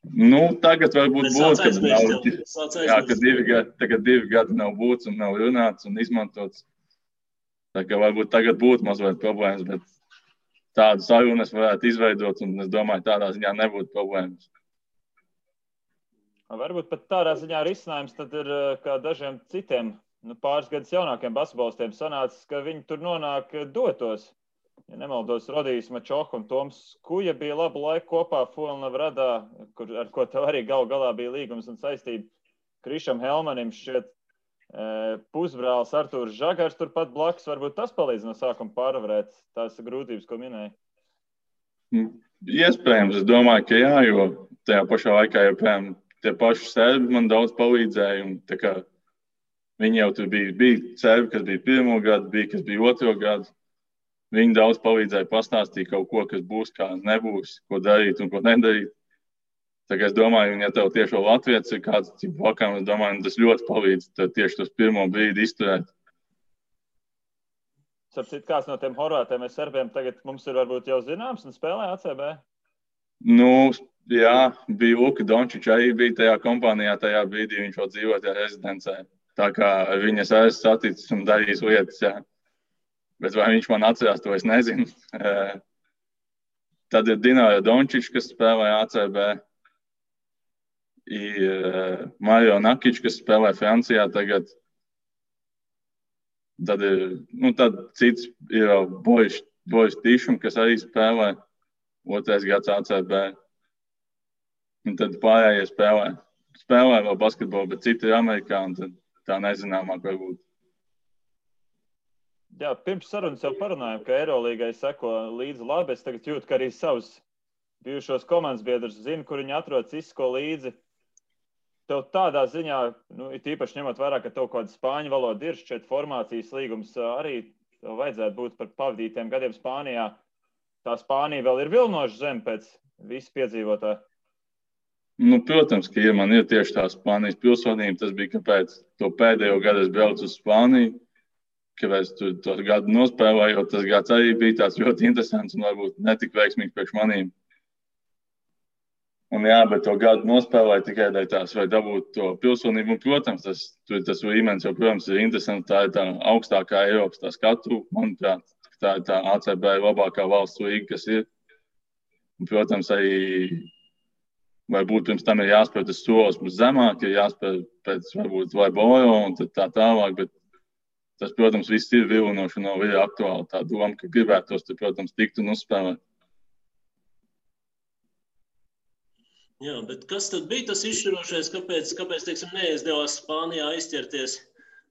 Nu, tagad varbūt būs, kad 2 gadi nav būts un nav runāts un izmantots. Tā kā varbūt tagad būtu mazliet problēmas, bet tādu sarunu es varētu izveidot un es domāju, tādā ziņā nebūtu problēmas. Varbūt pat tādā ziņā risinājums tad ir kā dažiem citiem, pāris gadus jaunākiem basketbolistiem sanācis, ka viņi tur nonāk dotos. Ja nemaldos, Rodijs Mačoha un Toms Kuja bija labu laiku kopā Fulnavradā, ar ko tev arī galā bija līgums un saistība. Krišam Helmanim šķiet pusbrālis Artūrs Žagars turpat blakus. Varbūt tas palīdz no sākuma pārvarēt tās grūtības, ko minēja? Iespējams, es domāju, ka jā, jo tajā pašā laikā joprojām tie paši serbi man daudz palīdzēja. Un, tā kā, viņi jau tur bija serbi, kas bija 1. gadu, bija, kas bija 2. gadu. Viņi daudz palīdzēja pastāstīt kaut ko, kas būs, kā nebūs, ko darīt un ko nedarīt. Tā kā es domāju, ja tev tieši Latvijas ir kāds vakām, es domāju, tas ļoti palīdz tieši tos pirmo brīdi izturēt. Sapcīt, kāds no tiem horvātiem vai serbiem tagad mums ir varbūt jau zināms un spēlē ACB? Nu, jā, bija Luka Dončič, arī bija tajā kompānijā, tajā brīdī viņš vēl dzīvoja tajā rezidencē. Tā kā viņas esmu saticis un darījis lietas, jā. Bet vai viņš man atcerās, to es nezinu. Tad ir Dināra Dončič, kas spēlē ACB. Ir Mario Nakič, kas spēlē Francijā tagad. Tad ir, tad cits ir Boris Tišum, kas arī spēlē 2. gads ACB. Un tad pārējie spēlē. Spēlē vēl basketbolu, bet citi ir Amerikā, un tad tā nezināmāk varbūt. Jā, pirms sarunas jau parunājām, ka Eirolīgai seko līdzi labi. Es tagad jūtu, ka arī savus bijušos komandas biedrus zinu, kur viņi atrodas, izseko līdzi. Tev tādā ziņā, it īpaši ņemot vērā, ka tev kāda spāņu valoda ir, šķiet formācijas līgums arī tev vajadzētu būt par pavadītiem gadiem Spānijā. Tā Spānija vēl ir vilnoša zeme pēc visu piedzīvotā. Protams, ka man ir tieši tā Spānijas pilsonība. Tas bija, kāpēc to pēdējo gadu es braucu uz Spāniju. Kāpēc to gadu nospēlēju, jo tas gads arī bija tāds ļoti interesants un varbūt netik veiksmīgs priekš manīm. Un jā, bet to gadu nospēlēju tikai dēļ tās, vai dabūt to pilsonību. Un, protams, tas līmenis jau, protams, ir interesants. Tā ir tā augstākā Eiropas tā skatu. Manuprāt, tā ir tā ACB labākā valsts līga, kas ir. Un, protams, arī varbūt pirms tam ir jāspēr tas solis zemāk, ir jāspēr pēc varbūt vai Boro un tad tā tālāk, bet tas, protams, viss ir vilinoši un nav ir aktuāli. Tā doma, ka gribētos, tad, protams, tikt un uzspēlēt. Jā, bet kas tad bija tas izšķirošais, kāpēc teiksim, neizdevās Spānijā aizķerties?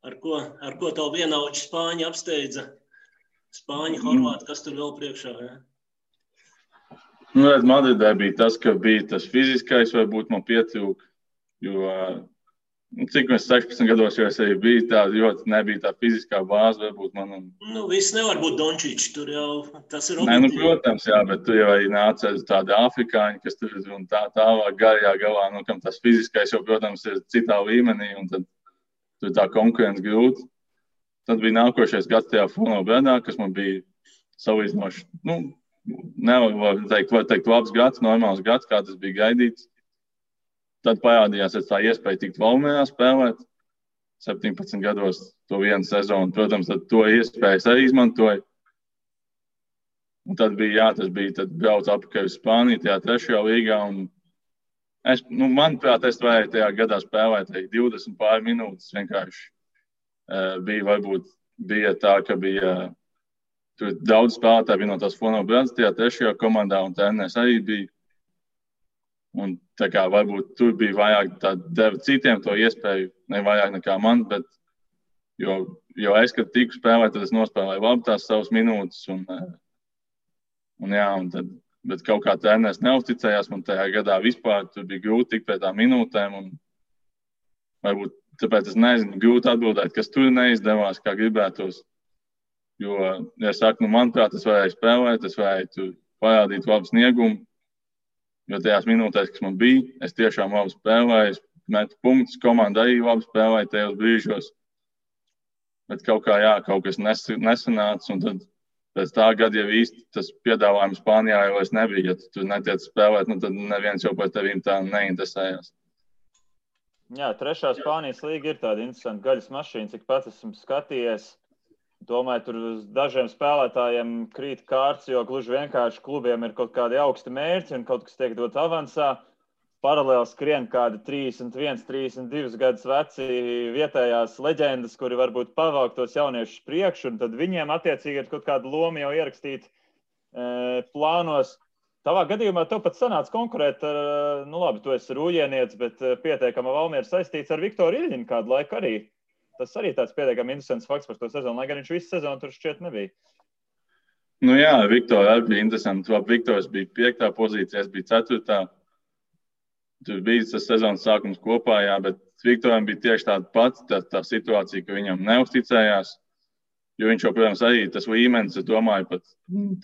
Ar ko tavu vienaudži Spāņi apsteidza? Spāņi, horvāti, kas tur vēl priekšā? Ja? Madridē bija tas, ka bija tas fiziskais, varbūt man pietrūka, jo cik mēs 16 gados jau es arī biju tā, ļoti nebija tā fiziskā bāze, varbūt man. Viss nevar būt Dončič, tur jau tas ir objektīvi. Protams, jā, bet tu jau arī nāca tādi afrikāņi, kas tur un tālāk garajā galā, kam tas fiziskais jau, protams, ir citā līmenī, un tad tur tā konkurence grūti. Tad bija nākošais gads tajā Fulnavradā, kas man bija salīdzinoši, nevar teikt labs gads, normāls gads, kā tas bija gaidīts. Tad parādījās tā iespēja tikt Valmierā spēlēt 17 gados to vienu sezonu. Protams, tad to iespējas arī izmantoja. Un tad bija, tas bija, tad brauc apakaļ uz Spāniju, tajā 3. līgā. Un manuprāt, es varēju tajā gadā spēlēt 20 pār minūtes. Vienkārši bija varbūt bija tā, ka bija tur daudz spēlētāji bija no tās Fono Brands, tajā trešajā komandā, un treneris arī bija. Un tā kā varbūt tur bija vairāk tā deva citiem to iespēju, ne vairāk nekā man, bet jo es, kad tiku spēlēt, tad es nospēlēju labi tās savas minūtes, un tad, bet kaut kā treneris neuzticējās man tajā gadā vispār, tur bija grūti tikt pie tām minūtēm, un varbūt tāpēc es nezinu, grūti atbildēt, kas tur neizdevās, kā gribētos. Jo, ja es saku, manuprāt, es varēju spēlēt, es varēju tur parādīt labu sniegumu, jo tajās minūtēs, kas man bija, es tiešām labi spēlēju, es metu punktus, komanda arī labi spēlēja tajos brīžos. Bet kaut kas nesanāca, un tad pēc tā gada jau īsti tas piedāvājums Spānijā jau vairs nebija. Ja tu tur netiec spēlēt, tad neviens jau par tevīm tā neinteresējās. Jā, trešā Spānijas līga ir tāda interesanta gaļas mašīna, cik pats esmu skatījies. Domāju, tur uz dažiem spēlētājiem krīt kārts, jo gluži vienkārši klubiem ir kaut kādi augsti mērķi un kaut kas tiek dots avansā. Paralēli skrien kādi 31, 32 gadus veci vietējās leģendas, kuri varbūt pavāk tos jauniešus priekšu, un tad viņiem attiecīgi ir kaut kāda loma jau ierakstīt plānos. Tavā gadījumā tev pat sanāca konkurēt ar, labi, tu esi rūjienietis, bet pietiekama Valmiera saistīts ar Viktoru Iļņinu kādu laiku arī. Tas arī tāds pietiekami interesants fakts par to sezonu, lai gan viņš visu sezonu tur šķiet nebija. Jā, Viktora arī bija interesanti. Viktors bija 5. pozīcijā, es biju 4. Tur bija tas sezonas sākums kopā, jā, bet Viktoram bija tieši tāda pati tā situācija, ka viņam neuzticējās. Jo viņš jau, protams, arī tas līmenis, es domāju, pat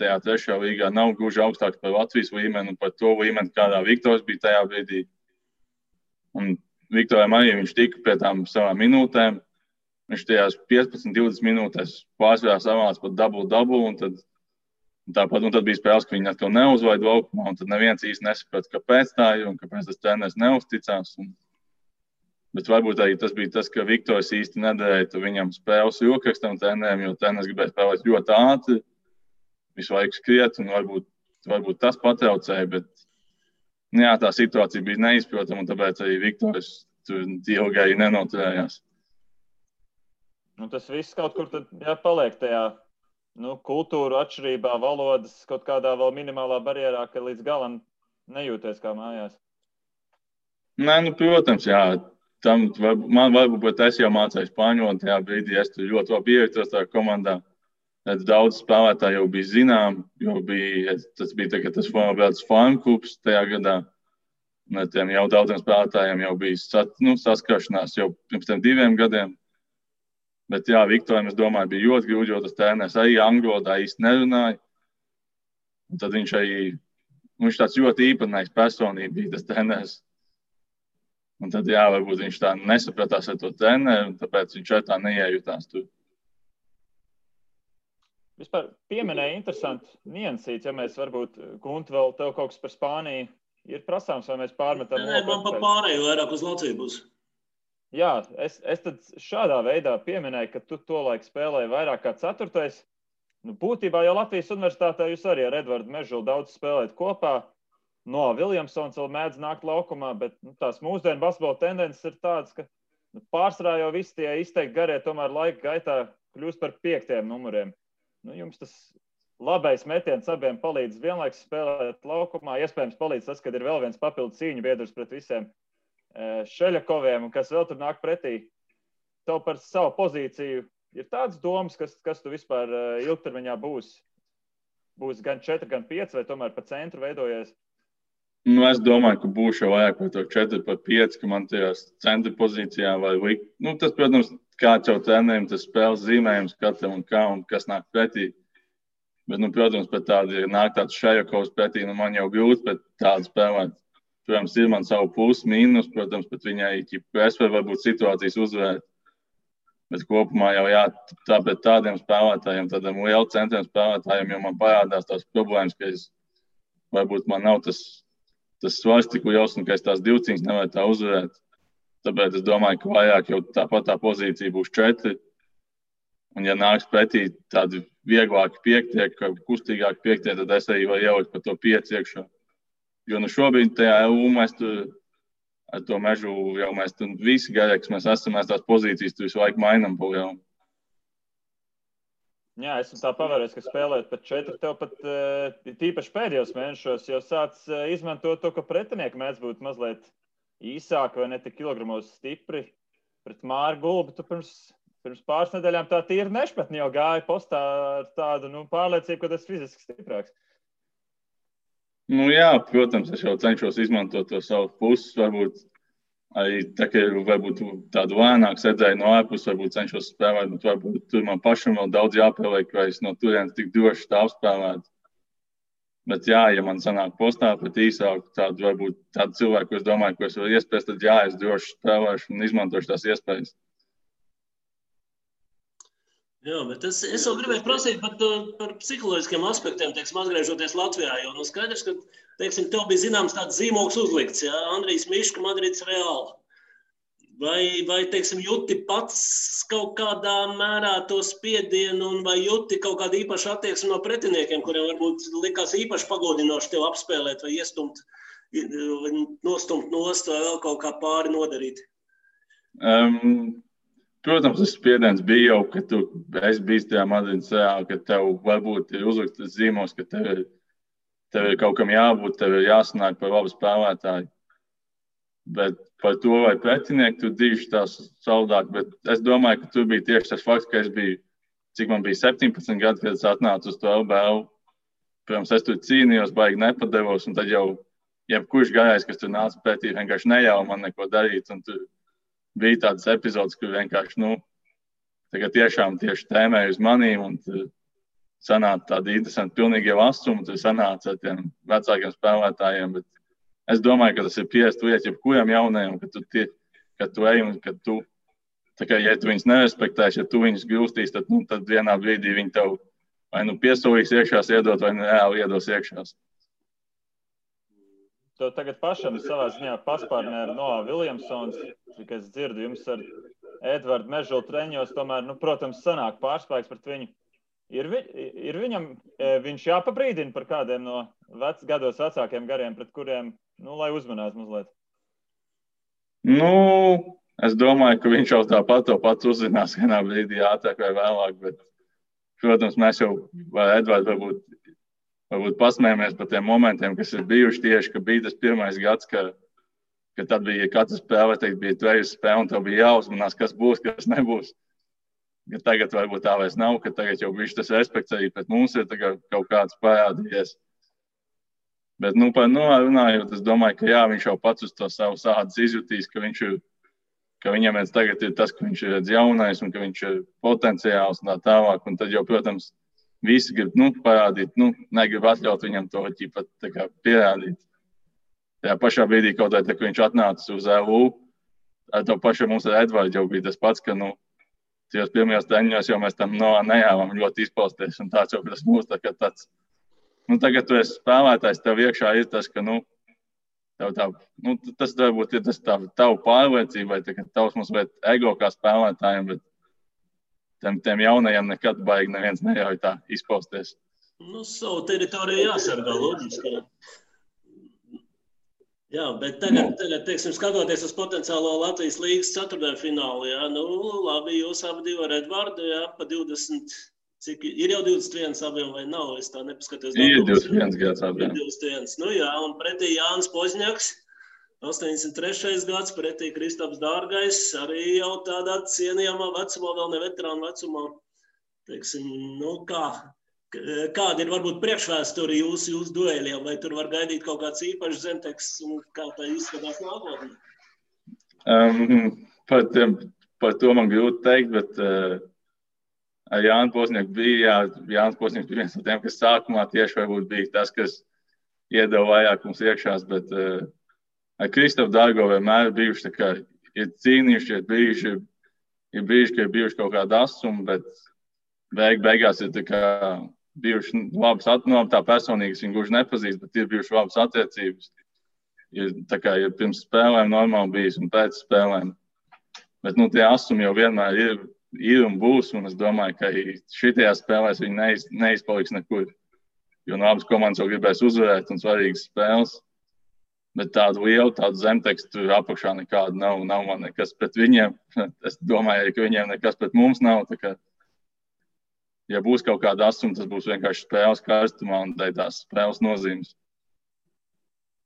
tajā trešajā līgā nav gluži augstāks par Latvijas līmeni un par to līmeni, kādā Viktors bija tajā brīdī. Un Viktoram arī viņš tika pie tām savām minūtēm. Viņš tajās 15-20 minūtēs pārsvarā savāca pat double, un tad bija spēles, ka viņi atkal neuzvaida laukumā, un tad neviens īsti nesaprata, kāpēc tā ir un kāpēc tas treneris neuzticās. Bet varbūt arī tas bija tas, ka Viktors īsti nedarēja viņam spēles rokrakstam trenerim, jo treneris gribēja spēlēt ļoti ātri, visu laiku skriet, un varbūt tas patraucēja, bet tā situācija bija neizprotama, un tāpēc arī Viktors tur ilgi arī nenoturējās. Tas viss kaut kur tad paliek tajā kultūru atšķirībā, valodas kaut kādā vēl minimālā barjerā, ka līdz galam nejūties kā mājās. Nē, protams, jā. Man varbūt es jau mācēju spāņu valodu tajā brīdī, es tur ļoti labi ievietos tajā komandā. Daudz spēlētāji jau bija zinām, jo tas bija tas farm klubs tajā gadā. Tiem jau daudziem spēlētājiem jau bija saskaršanās jau pirms 2 gadiem. Bet jā, Viktoram, es domāju, bija ļoti grūti, jo tas treneris arī angļu valodā īsti nerunāja. Un tad viņš tāds ļoti īpatnējs personība bija tas treneris. Un tad varbūt viņš tā nesapratās ar to treneri, un tāpēc viņš tā neiejutās tur. Vispār pieminēja interesanti niansīts, ja mēs varbūt, Gunti, vēl tev kaut kas par Spāniju ir prasāms, vai mēs pārmetam? Nē, man pa pārēju vairāk uz Latviju būs. Jā, es tad šādā veidā pieminēju, ka tu tolaik spēlēji vairāk kā 4. Būtībā jau Latvijas universitātē jūs arī ar Edvardu Mežulu daudz spēlēt kopā. Noah Viljamsons vēl mēdz nākt laukumā, bet tās mūsdienu basketbola tendences ir tādas, ka pārsvarā jau visi tie izteikti garie tomēr laika gaitā kļūst par 5. numuriem. Jums tas labais metiens abiem palīdz vienlaikus spēlēt laukumā. Iespējams palīdz tas, kad ir vēl viens papildu cīņu biedrs pret visiem Šeļakoviem, kas vēl tur nāk pretī. Tev par savu pozīciju ir tāds domas, kas tu vispār ilgtermiņā būs gan 4, gan 5, vai tomēr pa centru veidojies? Es domāju, ka būšu jau vairāk par to 4, par 5, ka man tajās centra pozīcijā vai likt. Tas, protams, kāds jau trenerim, tas spēles zīmējums katram un kā un kas nāk pretī. Bet, protams, pat tādi nāk tāds Šeļakovs pretī, man jau grūti pret tādu spēlēt. Protams, ir man savu plusu, mīnus, protams, bet viņai es varu varbūt situācijas uzvērt. Bet kopumā jau tāpēc tādiem spēlētājiem, tādiem lielu centriem spēlētājiem, jo man parādās tās problēmas, ka varbūt man nav tas svars tik liels un ka es tās divcīņas nevaru tā uzvarēt. Tāpēc es domāju, ka vairāk jau tāpat tā pozīcija būs 4. Un ja nāks pretī tādi vieglāki 5, kustīgāki 5, tad es arī varu ielikt par to 5 iekšā. Jo šobrīd tajā EU mēs tur ar to Mežu jau mēs tur visi gaļēks, mēs tās pozīcijas tur visu laiku mainām pa lielu. Jā, esmu tā pavērējis, ka spēlēt pat 4, tev pat tīpaši pēdējos mēnešos jau sāc izmantot to, ka pretinieki mēdz būt mazliet īsāki vai ne tik kilogramos stipri. Pret Māru Gulbi tu pirms pāris nedēļām tā tīri nešpatni jau gāja postā ar tādu pārliecību, ka tas fiziski stiprāks. Jā, protams, es jau cenšos izmantot to savu puses, varbūt arī tā, ka varbūt tādu lēnāku sēdēju no ārpus, varbūt cenšos spēlēt, bet varbūt tur man pašam vēl daudz jāpieliek, vai es no turienes tik droši tā apspēlētu. Bet jā, ja man sanāk postā pat īsāku tādu, varbūt tādu cilvēku, ko es domāju, ko es varu iespējas, tad jā, es droši spēlēšu un izmantošu tās iespējas. Jā, bet es vēl gribēju prasīt par psiholoģiskiem aspektiem, teiksim, atgriežoties Latvijā, jo skaidrs, ka, teiksim, tev bija zināms tāds zīmogs uzlikts, jā, Andrijs Miška, Madrids Reāli. Vai, teiksim, jūti pats kaut kādā mērā to spiedienu un vai jūti kaut kādu īpašu attieksmi no pretiniekiem, kuriem varbūt likās īpaši pagodinoši tev apspēlēt vai iestumt, nostumt nost vai vēl kaut kā pāri nodarīt? Protams, tas spiediens bija jau, ka tu esi bijis tajā Madrides Reālī, ka tev varbūt ir uzlikts tas zīmos, ka tev ir kaut kam jābūt, tev ir jāsanāk par labu spēlētāju. Bet par to, vai pretinieki tur diži tās savādāk, bet es domāju, ka tur bija tieši tas fakts, ka es biju, cik man bija 17 gadi, kad es atnācu uz to LBL. Protams, es tur cīnījos, baigi nepadevos, un tad jau jebkurš gājais, kas tur nāca pretī, vienkārši nejauja man neko darīt, un tur bija tādas epizodes, kur vienkārši, tagad tiešām tieši tēmēja uz manīm, un tur sanāca tādi interesanti, pilnīgi jau asumi, tur sanāca ar tiem vecākiem spēlētājiem, bet es domāju, ka tas ir pierast lieta jebkuram jaunajam, ka tu ej un ka tu, tā kā, ja tu viņus nerespektēsi, ja tu viņus grūstīs, tad vienā brīdī viņi tev vai piesolīs iekšās iedot, vai reāli iedos iekšās. To tagad pašam savā ziņā paspārnē ar Noah Williamsons, cik es dzirdu, jums ar Edvardu Mežulu treņos, tomēr, protams, sanāk pārspēks pret viņu. Ir viņam, viņš jāpabrīdina par kādiem no gados vecākiem gariem, pret kuriem, lai uzmanās mazliet? Es domāju, ka viņš jau tāpat to pats uzzinās vienā brīdī ātrāk vai vēlāk, bet, protams, mēs jau ar Edvardu varbūt pasmējamies par tiem momentiem, kas ir bijuši tieši, ka bija tas pirmais gads, ka tad bija katra spēle, bija tvejas spēle, un tev bija jāuzmanās, kas būs, kas nebūs. Ja tagad varbūt tā vairs nav, ka tagad jau bišķi tas respekts arī pret mums ir kaut kāds parādījies. Bet, par Noah runājot, es domāju, ka jā, viņš jau pats uz to savu sādas izjutīs, ka viņam viens tagad ir tas, ka viņš ir jaunais un ka viņš ir potenciāls un tā tālāk, un tad jau, protams, visi grib parādīt, negrib atļaut viņam to pierādīt. Tajā pašā brīdī, kaut kā, ka viņš atnāca uz LU, ar to pašu mums ar Edvardu jau bija tas pats, ka tajos pirmajos treņos jau mēs tam nejāvām ļoti izpausties, un tāds jau tas mūs tāds. Tagad tu esi spēlētājs, tev iekšā ir tas, ka, tas varbūt ir tas tavu pārliecība, vai tavs mums vai ego kā spēlētājiem, bet tiem jaunajiem nekad baigi neviens neļauj tā izpausties. Savu teritoriju jāsargā, loģiski. Jā, bet tagad, teiksim, skatoties uz potenciālo Latvijas līgas ceturtdaļfinālu, jā, labi, jūs abi divi ar Edvardu, jā, pa 20, cik ir jau 21 abiem vai nav, es tā nepaskatos. Ir 21 gads abiem. 21, jā, un pretī Jānis Pozņaks, 83. gads, pretī Kristaps Dārgais, arī jau tādā cienījamā vecumā, vēl ne veterānu vecumā. Teiksim, kāda ir varbūt priekšvēsture jūsu dueļiem, vai tur var gaidīt kaut kāds īpašs zemteks un kā tā izskatās nākotnē? Par to man grūti teikt, bet ar Jānu Pozņaku bija, Jānis Pozņaks bija viens no tiem, kas sākumā tieši varbūt bija tas, kas iedeva vairāk mums iekšās, bet ar Kristapu Dārgo vienmēr bijuši tā kā ir cīnījuši, ir brīži, ka ir bijuši kaut kāda asuma, bet beigās ir tā kā bijuši labas attiecības, tā personīgas viņi gluži nepazīst, bet ir bijuši labas attiecības. Ir pirms spēlēm normāli bijis un pēc spēlēm. Bet tie asumi jau vienmēr ir un būs, un es domāju, ka šitajās spēlēs viņi neizpaliks nekur. Jo abas komandas jau gribēs uzvarēt un svarīgas spēles. Bet tādu lielu, tādu zemtekstu apakšā nekādu nav man nekas pret viņiem. Es domāju, ka viņiem nekas pret mums nav. ja būs kaut kāda asuma, tas būs vienkārši spēles karstumā un tās spēles nozīmes.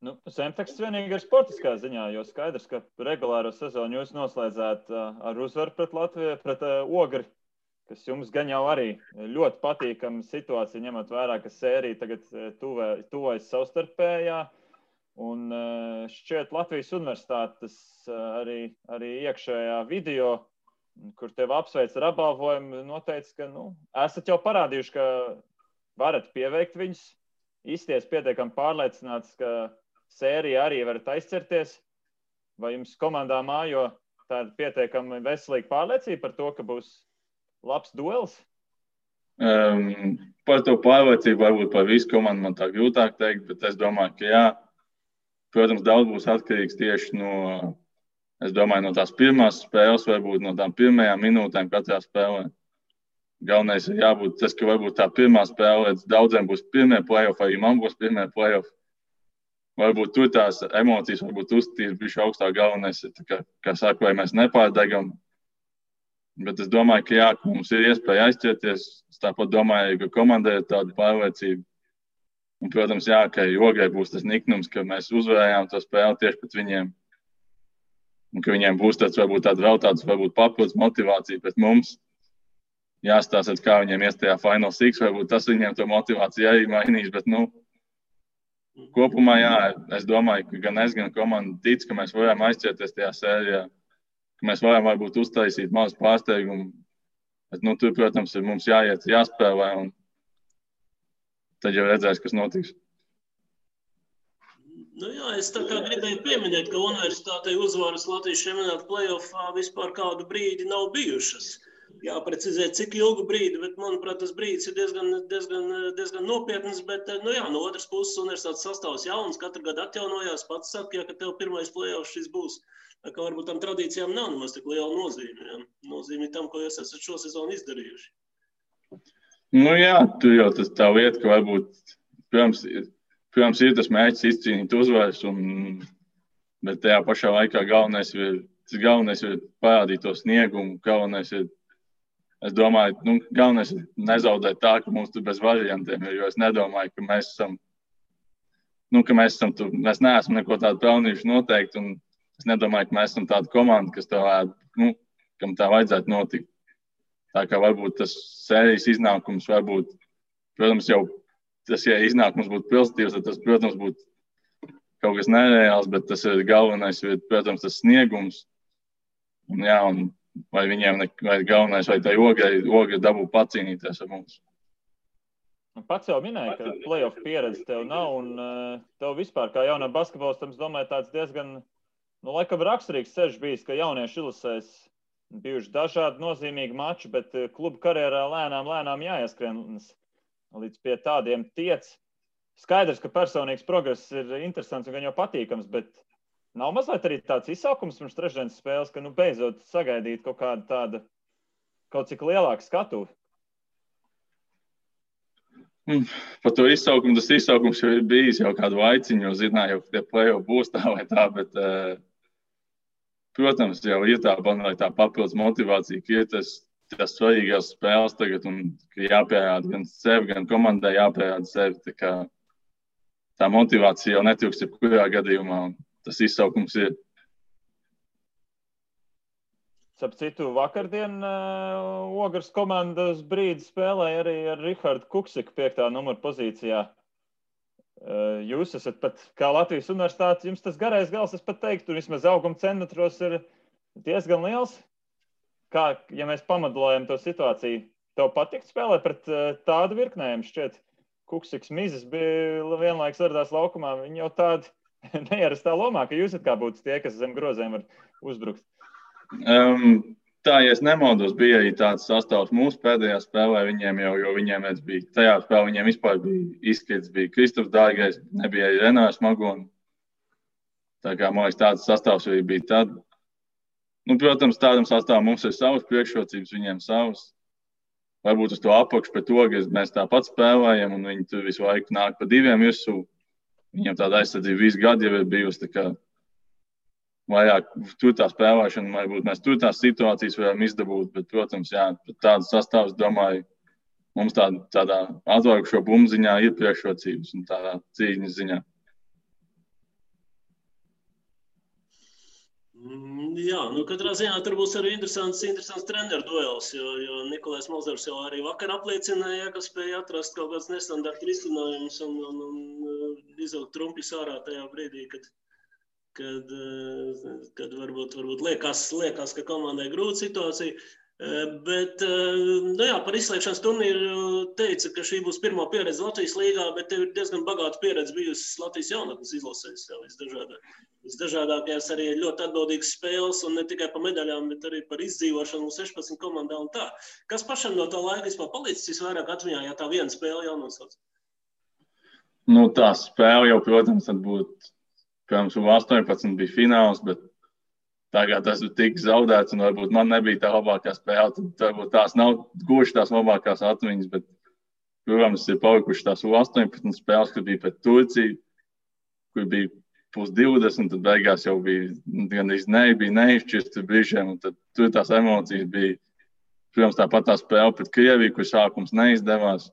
Nu, Zemteksts vienīgi ir sportiskā ziņā, jo skaidrs, ka regulāro sezonu jūs noslēdzāt ar uzvaru pret Latviju, pret Ogri, kas jums gan jau arī ļoti patīkama situācija, ņemot vērā, ka sērija tagad tuvojas savstarpējā. Un šķiet Latvijas universitātes arī iekšējā video, kur tev apsveic ar apbalvojumu, noteica, ka esat jau parādījuši, ka varat pieveikt viņus, izties pietiekami pārliecināts, ka sērija arī varat aizcerties. Vai jums komandā mājo tāda pietiekami veselīga pārliecība par to, ka būs labs duels? Par to pārliecību varbūt par visu komandu man tā grūtāk teikt, bet es domāju, ka jā. Protams, daudz būs atkarīgs tieši no tās pirmās spēles, varbūt no tām pirmajām minūtēm katrā spēlē. Galvenais ir jābūt tas, ka varbūt tā pirmā spēle, daudziem būs pirmie play-off, arī man būs pirmie play-off. Varbūt tur tās emocijas, varbūt uzstīt bišķi augstāk. Galvenais ir, kā saka, vai mēs nepārdegam. Bet es domāju, ka jā, ka mums ir iespēja aizķerties. Es tāpat domāju, ka komandai ir tāda pārliecība. Un, protams, jā, ka Ograi būs tas niknums, ka mēs uzvarējām to spēli tieši pret viņiem. Un ka viņiem būs varbūt papildus motivācija pret mums. Jāstāsta, kā viņiem ies tajā Final Six, varbūt tas viņiem to motivāciju arī mainīs, bet, kopumā, jā, es domāju, ka gan es, gan komanda tic, ka mēs varam aizķerties tajā sērijā, ka mēs varam varbūt uztaisīt mazu pārsteigumu. Bet, tur, protams, ir mums jāiet, jāspēlē, un tad jau redzēs, kas notiks. Jā, es tā kā gribēju pieminēt, ka universitātei uzvaras Latvijas čempionāta play-offā vispār kādu brīdi nav bijušas. Jāprecizē, cik ilgu brīdi, bet, manuprāt, tas brīdis ir diezgan nopietns, bet, no otras puses universitātes sastāvs jauns, katru gadu atjaunojās, pats saka, ka tev pirmais play-off šis būs. Tā kā varbūt tam tradīcijām nav nemaz tik liela nozīme, ja? Nozīme tam, ko jūs esat šo sezonu izdarījuši. Jā, tur jau tas tā lieta, ka varbūt, protams, ir tas mērķis izcīnīt uzvaras, bet tajā pašā laikā galvenais ir parādīt to sniegumu, galvenais ir, es domāju, galvenais ir nezaudēt tā, ka mums tur bez variantiem ir, jo es nedomāju, ka mēs esam tur, mēs neesam neko tādu pelnījuši noteikti, un es nedomāju, ka mēs esam tāda komanda, kas kam tā vajadzētu notikt. Tā kā varbūt tas sērijas iznākums varbūt, protams, jau tas, ja iznākums būtu pozitīvs, tad tas, protams, būtu kaut kas nereāls, bet tas ir galvenais, protams, tas sniegums. Un jā, un vai viņiem, vai galvenais, vai tai Ograi dabū pacīnīties ar mums. Pats jau minēja, ka play-off pieredze tev nav, un tev vispār, kā jaunā basketbolistam, es domāju, tāds diezgan, laikam raksturīgs ceļš bijis, ka jaunieši ilusēs bijuši dažādi nozīmīgi mači, bet klubu karjerā lēnām jāieskrien līdz pie tādiem tiec. Skaidrs, ka personīgs progress ir interesants un gan jau patīkams, bet nav mazliet arī tāds izsaukums pirms trešdienas spēles, ka beidzot sagaidīt kaut kādu tādu, kaut cik lielāku skatuvi. Par to izsaukumu, tas izsaukums jau ir bijis jau kādu laiciņu, jo zināju, ka tie play-off būs tā vai tā, bet, protams, jau ir tā papildus motivācija, ka ir tas svarīgās spēles tagad un ka jāpierāda gan sevi, gan komandai jāpierāda sevi. Tā motivācija jau netrūks jebkurā gadījumā. Tas izsaukums ir. Starp citu, vakardien Ogras komandas brīdi spēlēja arī ar Rihardu Kuksiku 5. numuru pozīcijā. Jūs esat pat, kā Latvijas universitāte, jums tas garais gals, es pat teiktu, vismaz auguma centimetros ir diezgan liels. Kā, ja mēs pamodelējam to situāciju, tev patikt spēlēt pret tādu virknējumu? Šķiet, Kuksiks Mizes bija vienlaiks ardās laukumā, viņi jau tādi neierastā lomā, ka jūs kā būtu tie, kas zem grozēm var uzbrukt. Tā, ja es nemaldos, bija arī tāds sastāvs mūsu pēdējā spēlē viņiem jau, jo viņiem bija tajā spēlē, viņiem vispār bija izkrits, bija Kristofs Dārgais, nebija arī Renārs Magoni. Tā kā, man liekas, tāds sastāvs arī bija tad. Protams, tādam sastāvam mums ir savas priekšrocības, viņiem savas. Varbūt uz to apakšu pret to, ka mēs tāpat spēlējam, un viņi tur visu laiku nāk pa diviem virsū. Viņiem tāda aizsardzība visu gadu jau ir bijusi, tā kā vairāk tur tā spēlēšana, varbūt mēs tur tās situācijas varam izdabūt, bet, protams, jā, tādas sastāvs, domāju, mums tādā atvargušo bumbu ziņā ir priekšrocības un tādā cīņas ziņā. Jā, katrā ziņā tur būs arī interesants treneru duels, jo Nikolais Mozers jau arī vakar apliecināja, ka spēja atrast kaut kāds nestandarta risinājums un izvilkt trumpis ārā tajā brīdī, kad varbūt liekas, ka komandai grūta situācija. Bet, par izslēgšanas turnīru teica, ka šī būs pirmā pieredze Latvijas līgā, bet tev ir diezgan bagāta pieredze bijusi Latvijas jaunatnes izlasēs visdažādākajās arī ļoti atbildīgas spēles un ne tikai par medaļām, bet arī par izdzīvošanu 16 komandā un tā. Kas pašam no tā laika vispār palicis visvairāk atmiņā, ja tā viena spēle jau nosauc? Tā spēle jau, protams, tad būtu, pirms U18 bija fināls, bet tagad tas tika zaudēts, un varbūt man nebija tā labākā spēle. Tad varbūt tās nav gluži tās labākās atmiņas, bet, protams, ir palikuši tās U18 spēles, kad bija pret Turciju, kur bija +20, tad beigās jau bija gandrīz bija neizšķirts brīžiem, un tad tur tās emocijas bija. Protams, tāpat tā spēle pret Krieviju, kur sākums neizdevās,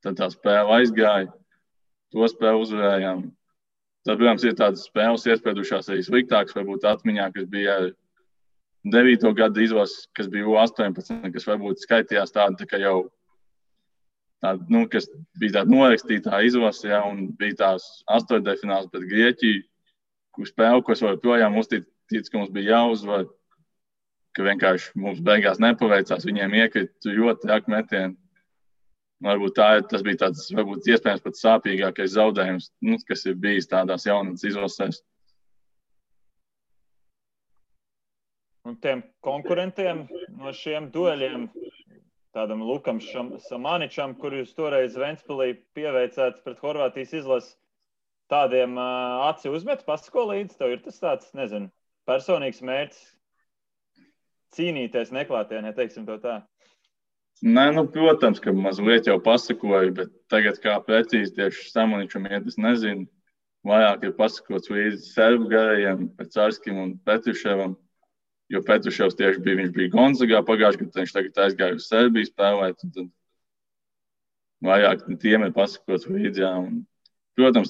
tad tā spēle aizgāja, to spēli uzvarējām. Tad, protams, ir tādas spēles iespēdušās arī sliktākas, varbūt atmiņā, kas bija 9. gada izlases, kas bija U18, kas varbūt skaitījās tāda, ka jau tāda, kas bija tāda norakstītā izlase, ja, un bija tās 8. fināls pret Grieķiju, kur spēle, ko es joprojām uzticīju, ka mums bija jāuzvar, ka vienkārši mums beigās nepaveicās, viņiem iekrita ļoti traki metieni. Varbūt tas bija tāds, varbūt iespējams pat sāpīgākais zaudējums, kas ir bijis tādās jaunatnes izlasēs. Un tiem konkurentiem no šiem dueļiem, tādam Lukam Samaničam, kur jūs toreiz Ventspilī pieveicāt pret Horvātijas izlasi, tādiem aci uzmet, pasako līdzi, tev ir tas tāds, nezinu, personīgs mērķis cīnīties neklātienē, teiksim to tā. Nē, protams, ka mazliet jau pasakoju, bet tagad kā precīzi tieši Samaničam iet, es nezinu. Vairāk ir pasakots līdzi serbu garajiem, Pecarskim un Petruševam, jo Petruševs tieši viņš bija Gonzagā pagājušajā gadā, viņš tagad aizgāja uz Serbiju spēlēt, un tad vairāk tiem ir pasakots līdzi, jā. Un, protams,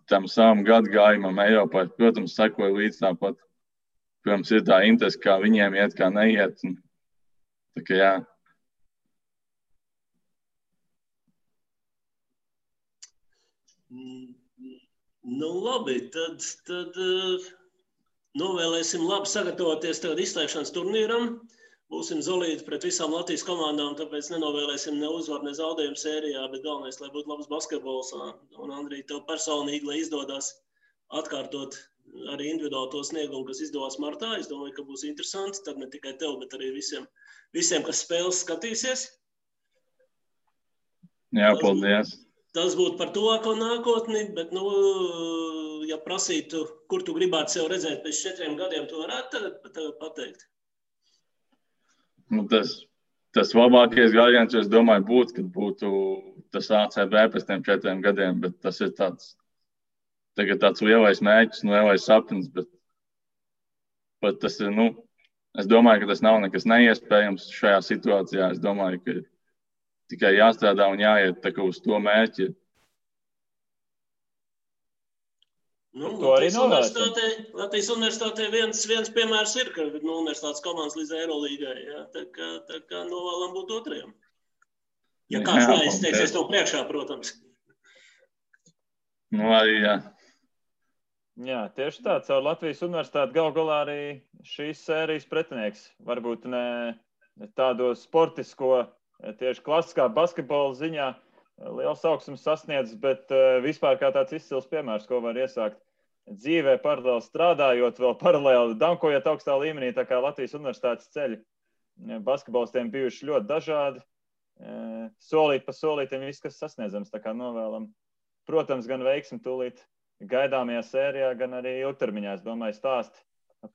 tam savam gadu gājumam Eiropā, protams, sekoju līdzi tāpat. Protams, ir tā interese, kā viņiem iet, kā neiet, un tā kā jā. Labi, tad novēlēsim labi sagatavoties tagad izslēgšanas turnīram. Būsim solīti pret visām Latvijas komandām, tāpēc nenovēlēsim ne uzvaru, ne zaudējumu sērijā, bet galvenais, lai būtu labs basketbols. Un, Andrij, tev personīgi, lai izdodas atkārtot arī individuāli to sniegumu, kas izdevās martā. Es domāju, ka būs interesanti, tad ne tikai tev, bet arī visiem kas spēles skatīsies. Jā, paldies. Tas būtu par tuvāko nākotni, bet, ja prasītu, kur tu gribētu sev redzēt pēc 4 gadiem, tu varētu tagad pateikt? Tas labākais gājiens, es domāju, būtu, kad būtu tas ACB pēc tiem 4 gadiem, bet tas ir tāds lielais mērķis, lielais sapnis, bet tas ir, es domāju, ka tas nav nekas neiespējams šajā situācijā. Es domāju, ka tikai jāstrādā un jāiet tā kā uz to mērķi. Latvijas universitātē viens piemērs ir, ka universitātes komandas līdz Eirolīgai. Tā kā novēlam būt otrajam. Ja kāds neizteiksies to priekšā, protams. Arī jā. Jā, tieši tā. Caur Latvijas universitāti gal galā arī šīs sērijas pretinieks. Varbūt ne tādo sportisko, tieši klasiskā basketbola ziņā liels augsums sasniedz, bet vispār kā tāds izcils piemērs, ko var iesākt dzīvē, paralēli strādājot, vēl paralēli dankojot augstā līmenī, tā kā Latvijas universitātes ceļi. Basketbolistiem bijuši ļoti dažādi. Solīt pa solītiem viss, kas sasniedzams, tā kā novēlam. Protams, gan veiksmi tūlīt gaidāmajā sērijā, gan arī ilgtermiņā. Es domāju, stāsti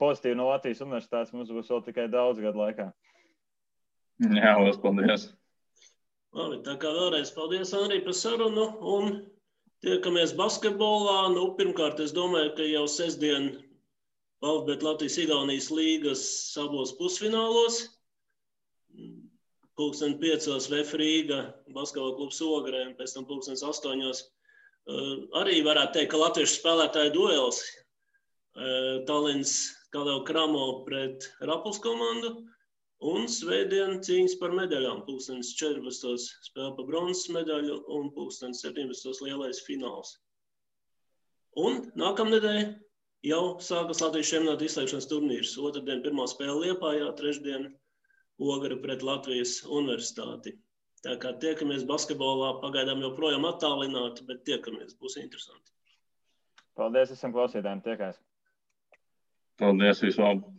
pozitīvi no Latvijas universitātes mums būs vēl tikai daudz gadu laikā. Jā, liels paldies. Labi, tā kā vēlreiz paldies, Andrij, par sarunu un tiekamies basketbolā. Pirmkārt, es domāju, ka jau sestdien Latvijas-Igaunijas līgas abos pusfinālos. 5:00 VF Rīga, basketbola klubs Ogrē, un pēc tam 8:00. Arī varētu teikt, ka latviešu spēlētāju duels. Tallinns Kadau Kramo pret Rapuls komandu, un svētdien cīņas par medaļām. 14:00 spēle par bronzas medaļu, un 17:00 lielais fināls. Un nākamnedēļ jau sākas Latvijas čempionāta izslēgšanas turnīrs. Otrdien pirmā spēle Liepājā, trešdien Ogre pret Latvijas universitāti. Tā kā tiekamies basketbolā, pagaidām joprojām attālināti, bet tiekamies, būs interesanti. Paldies visiem klausītājiem, tiekās. Paldies, visu labu!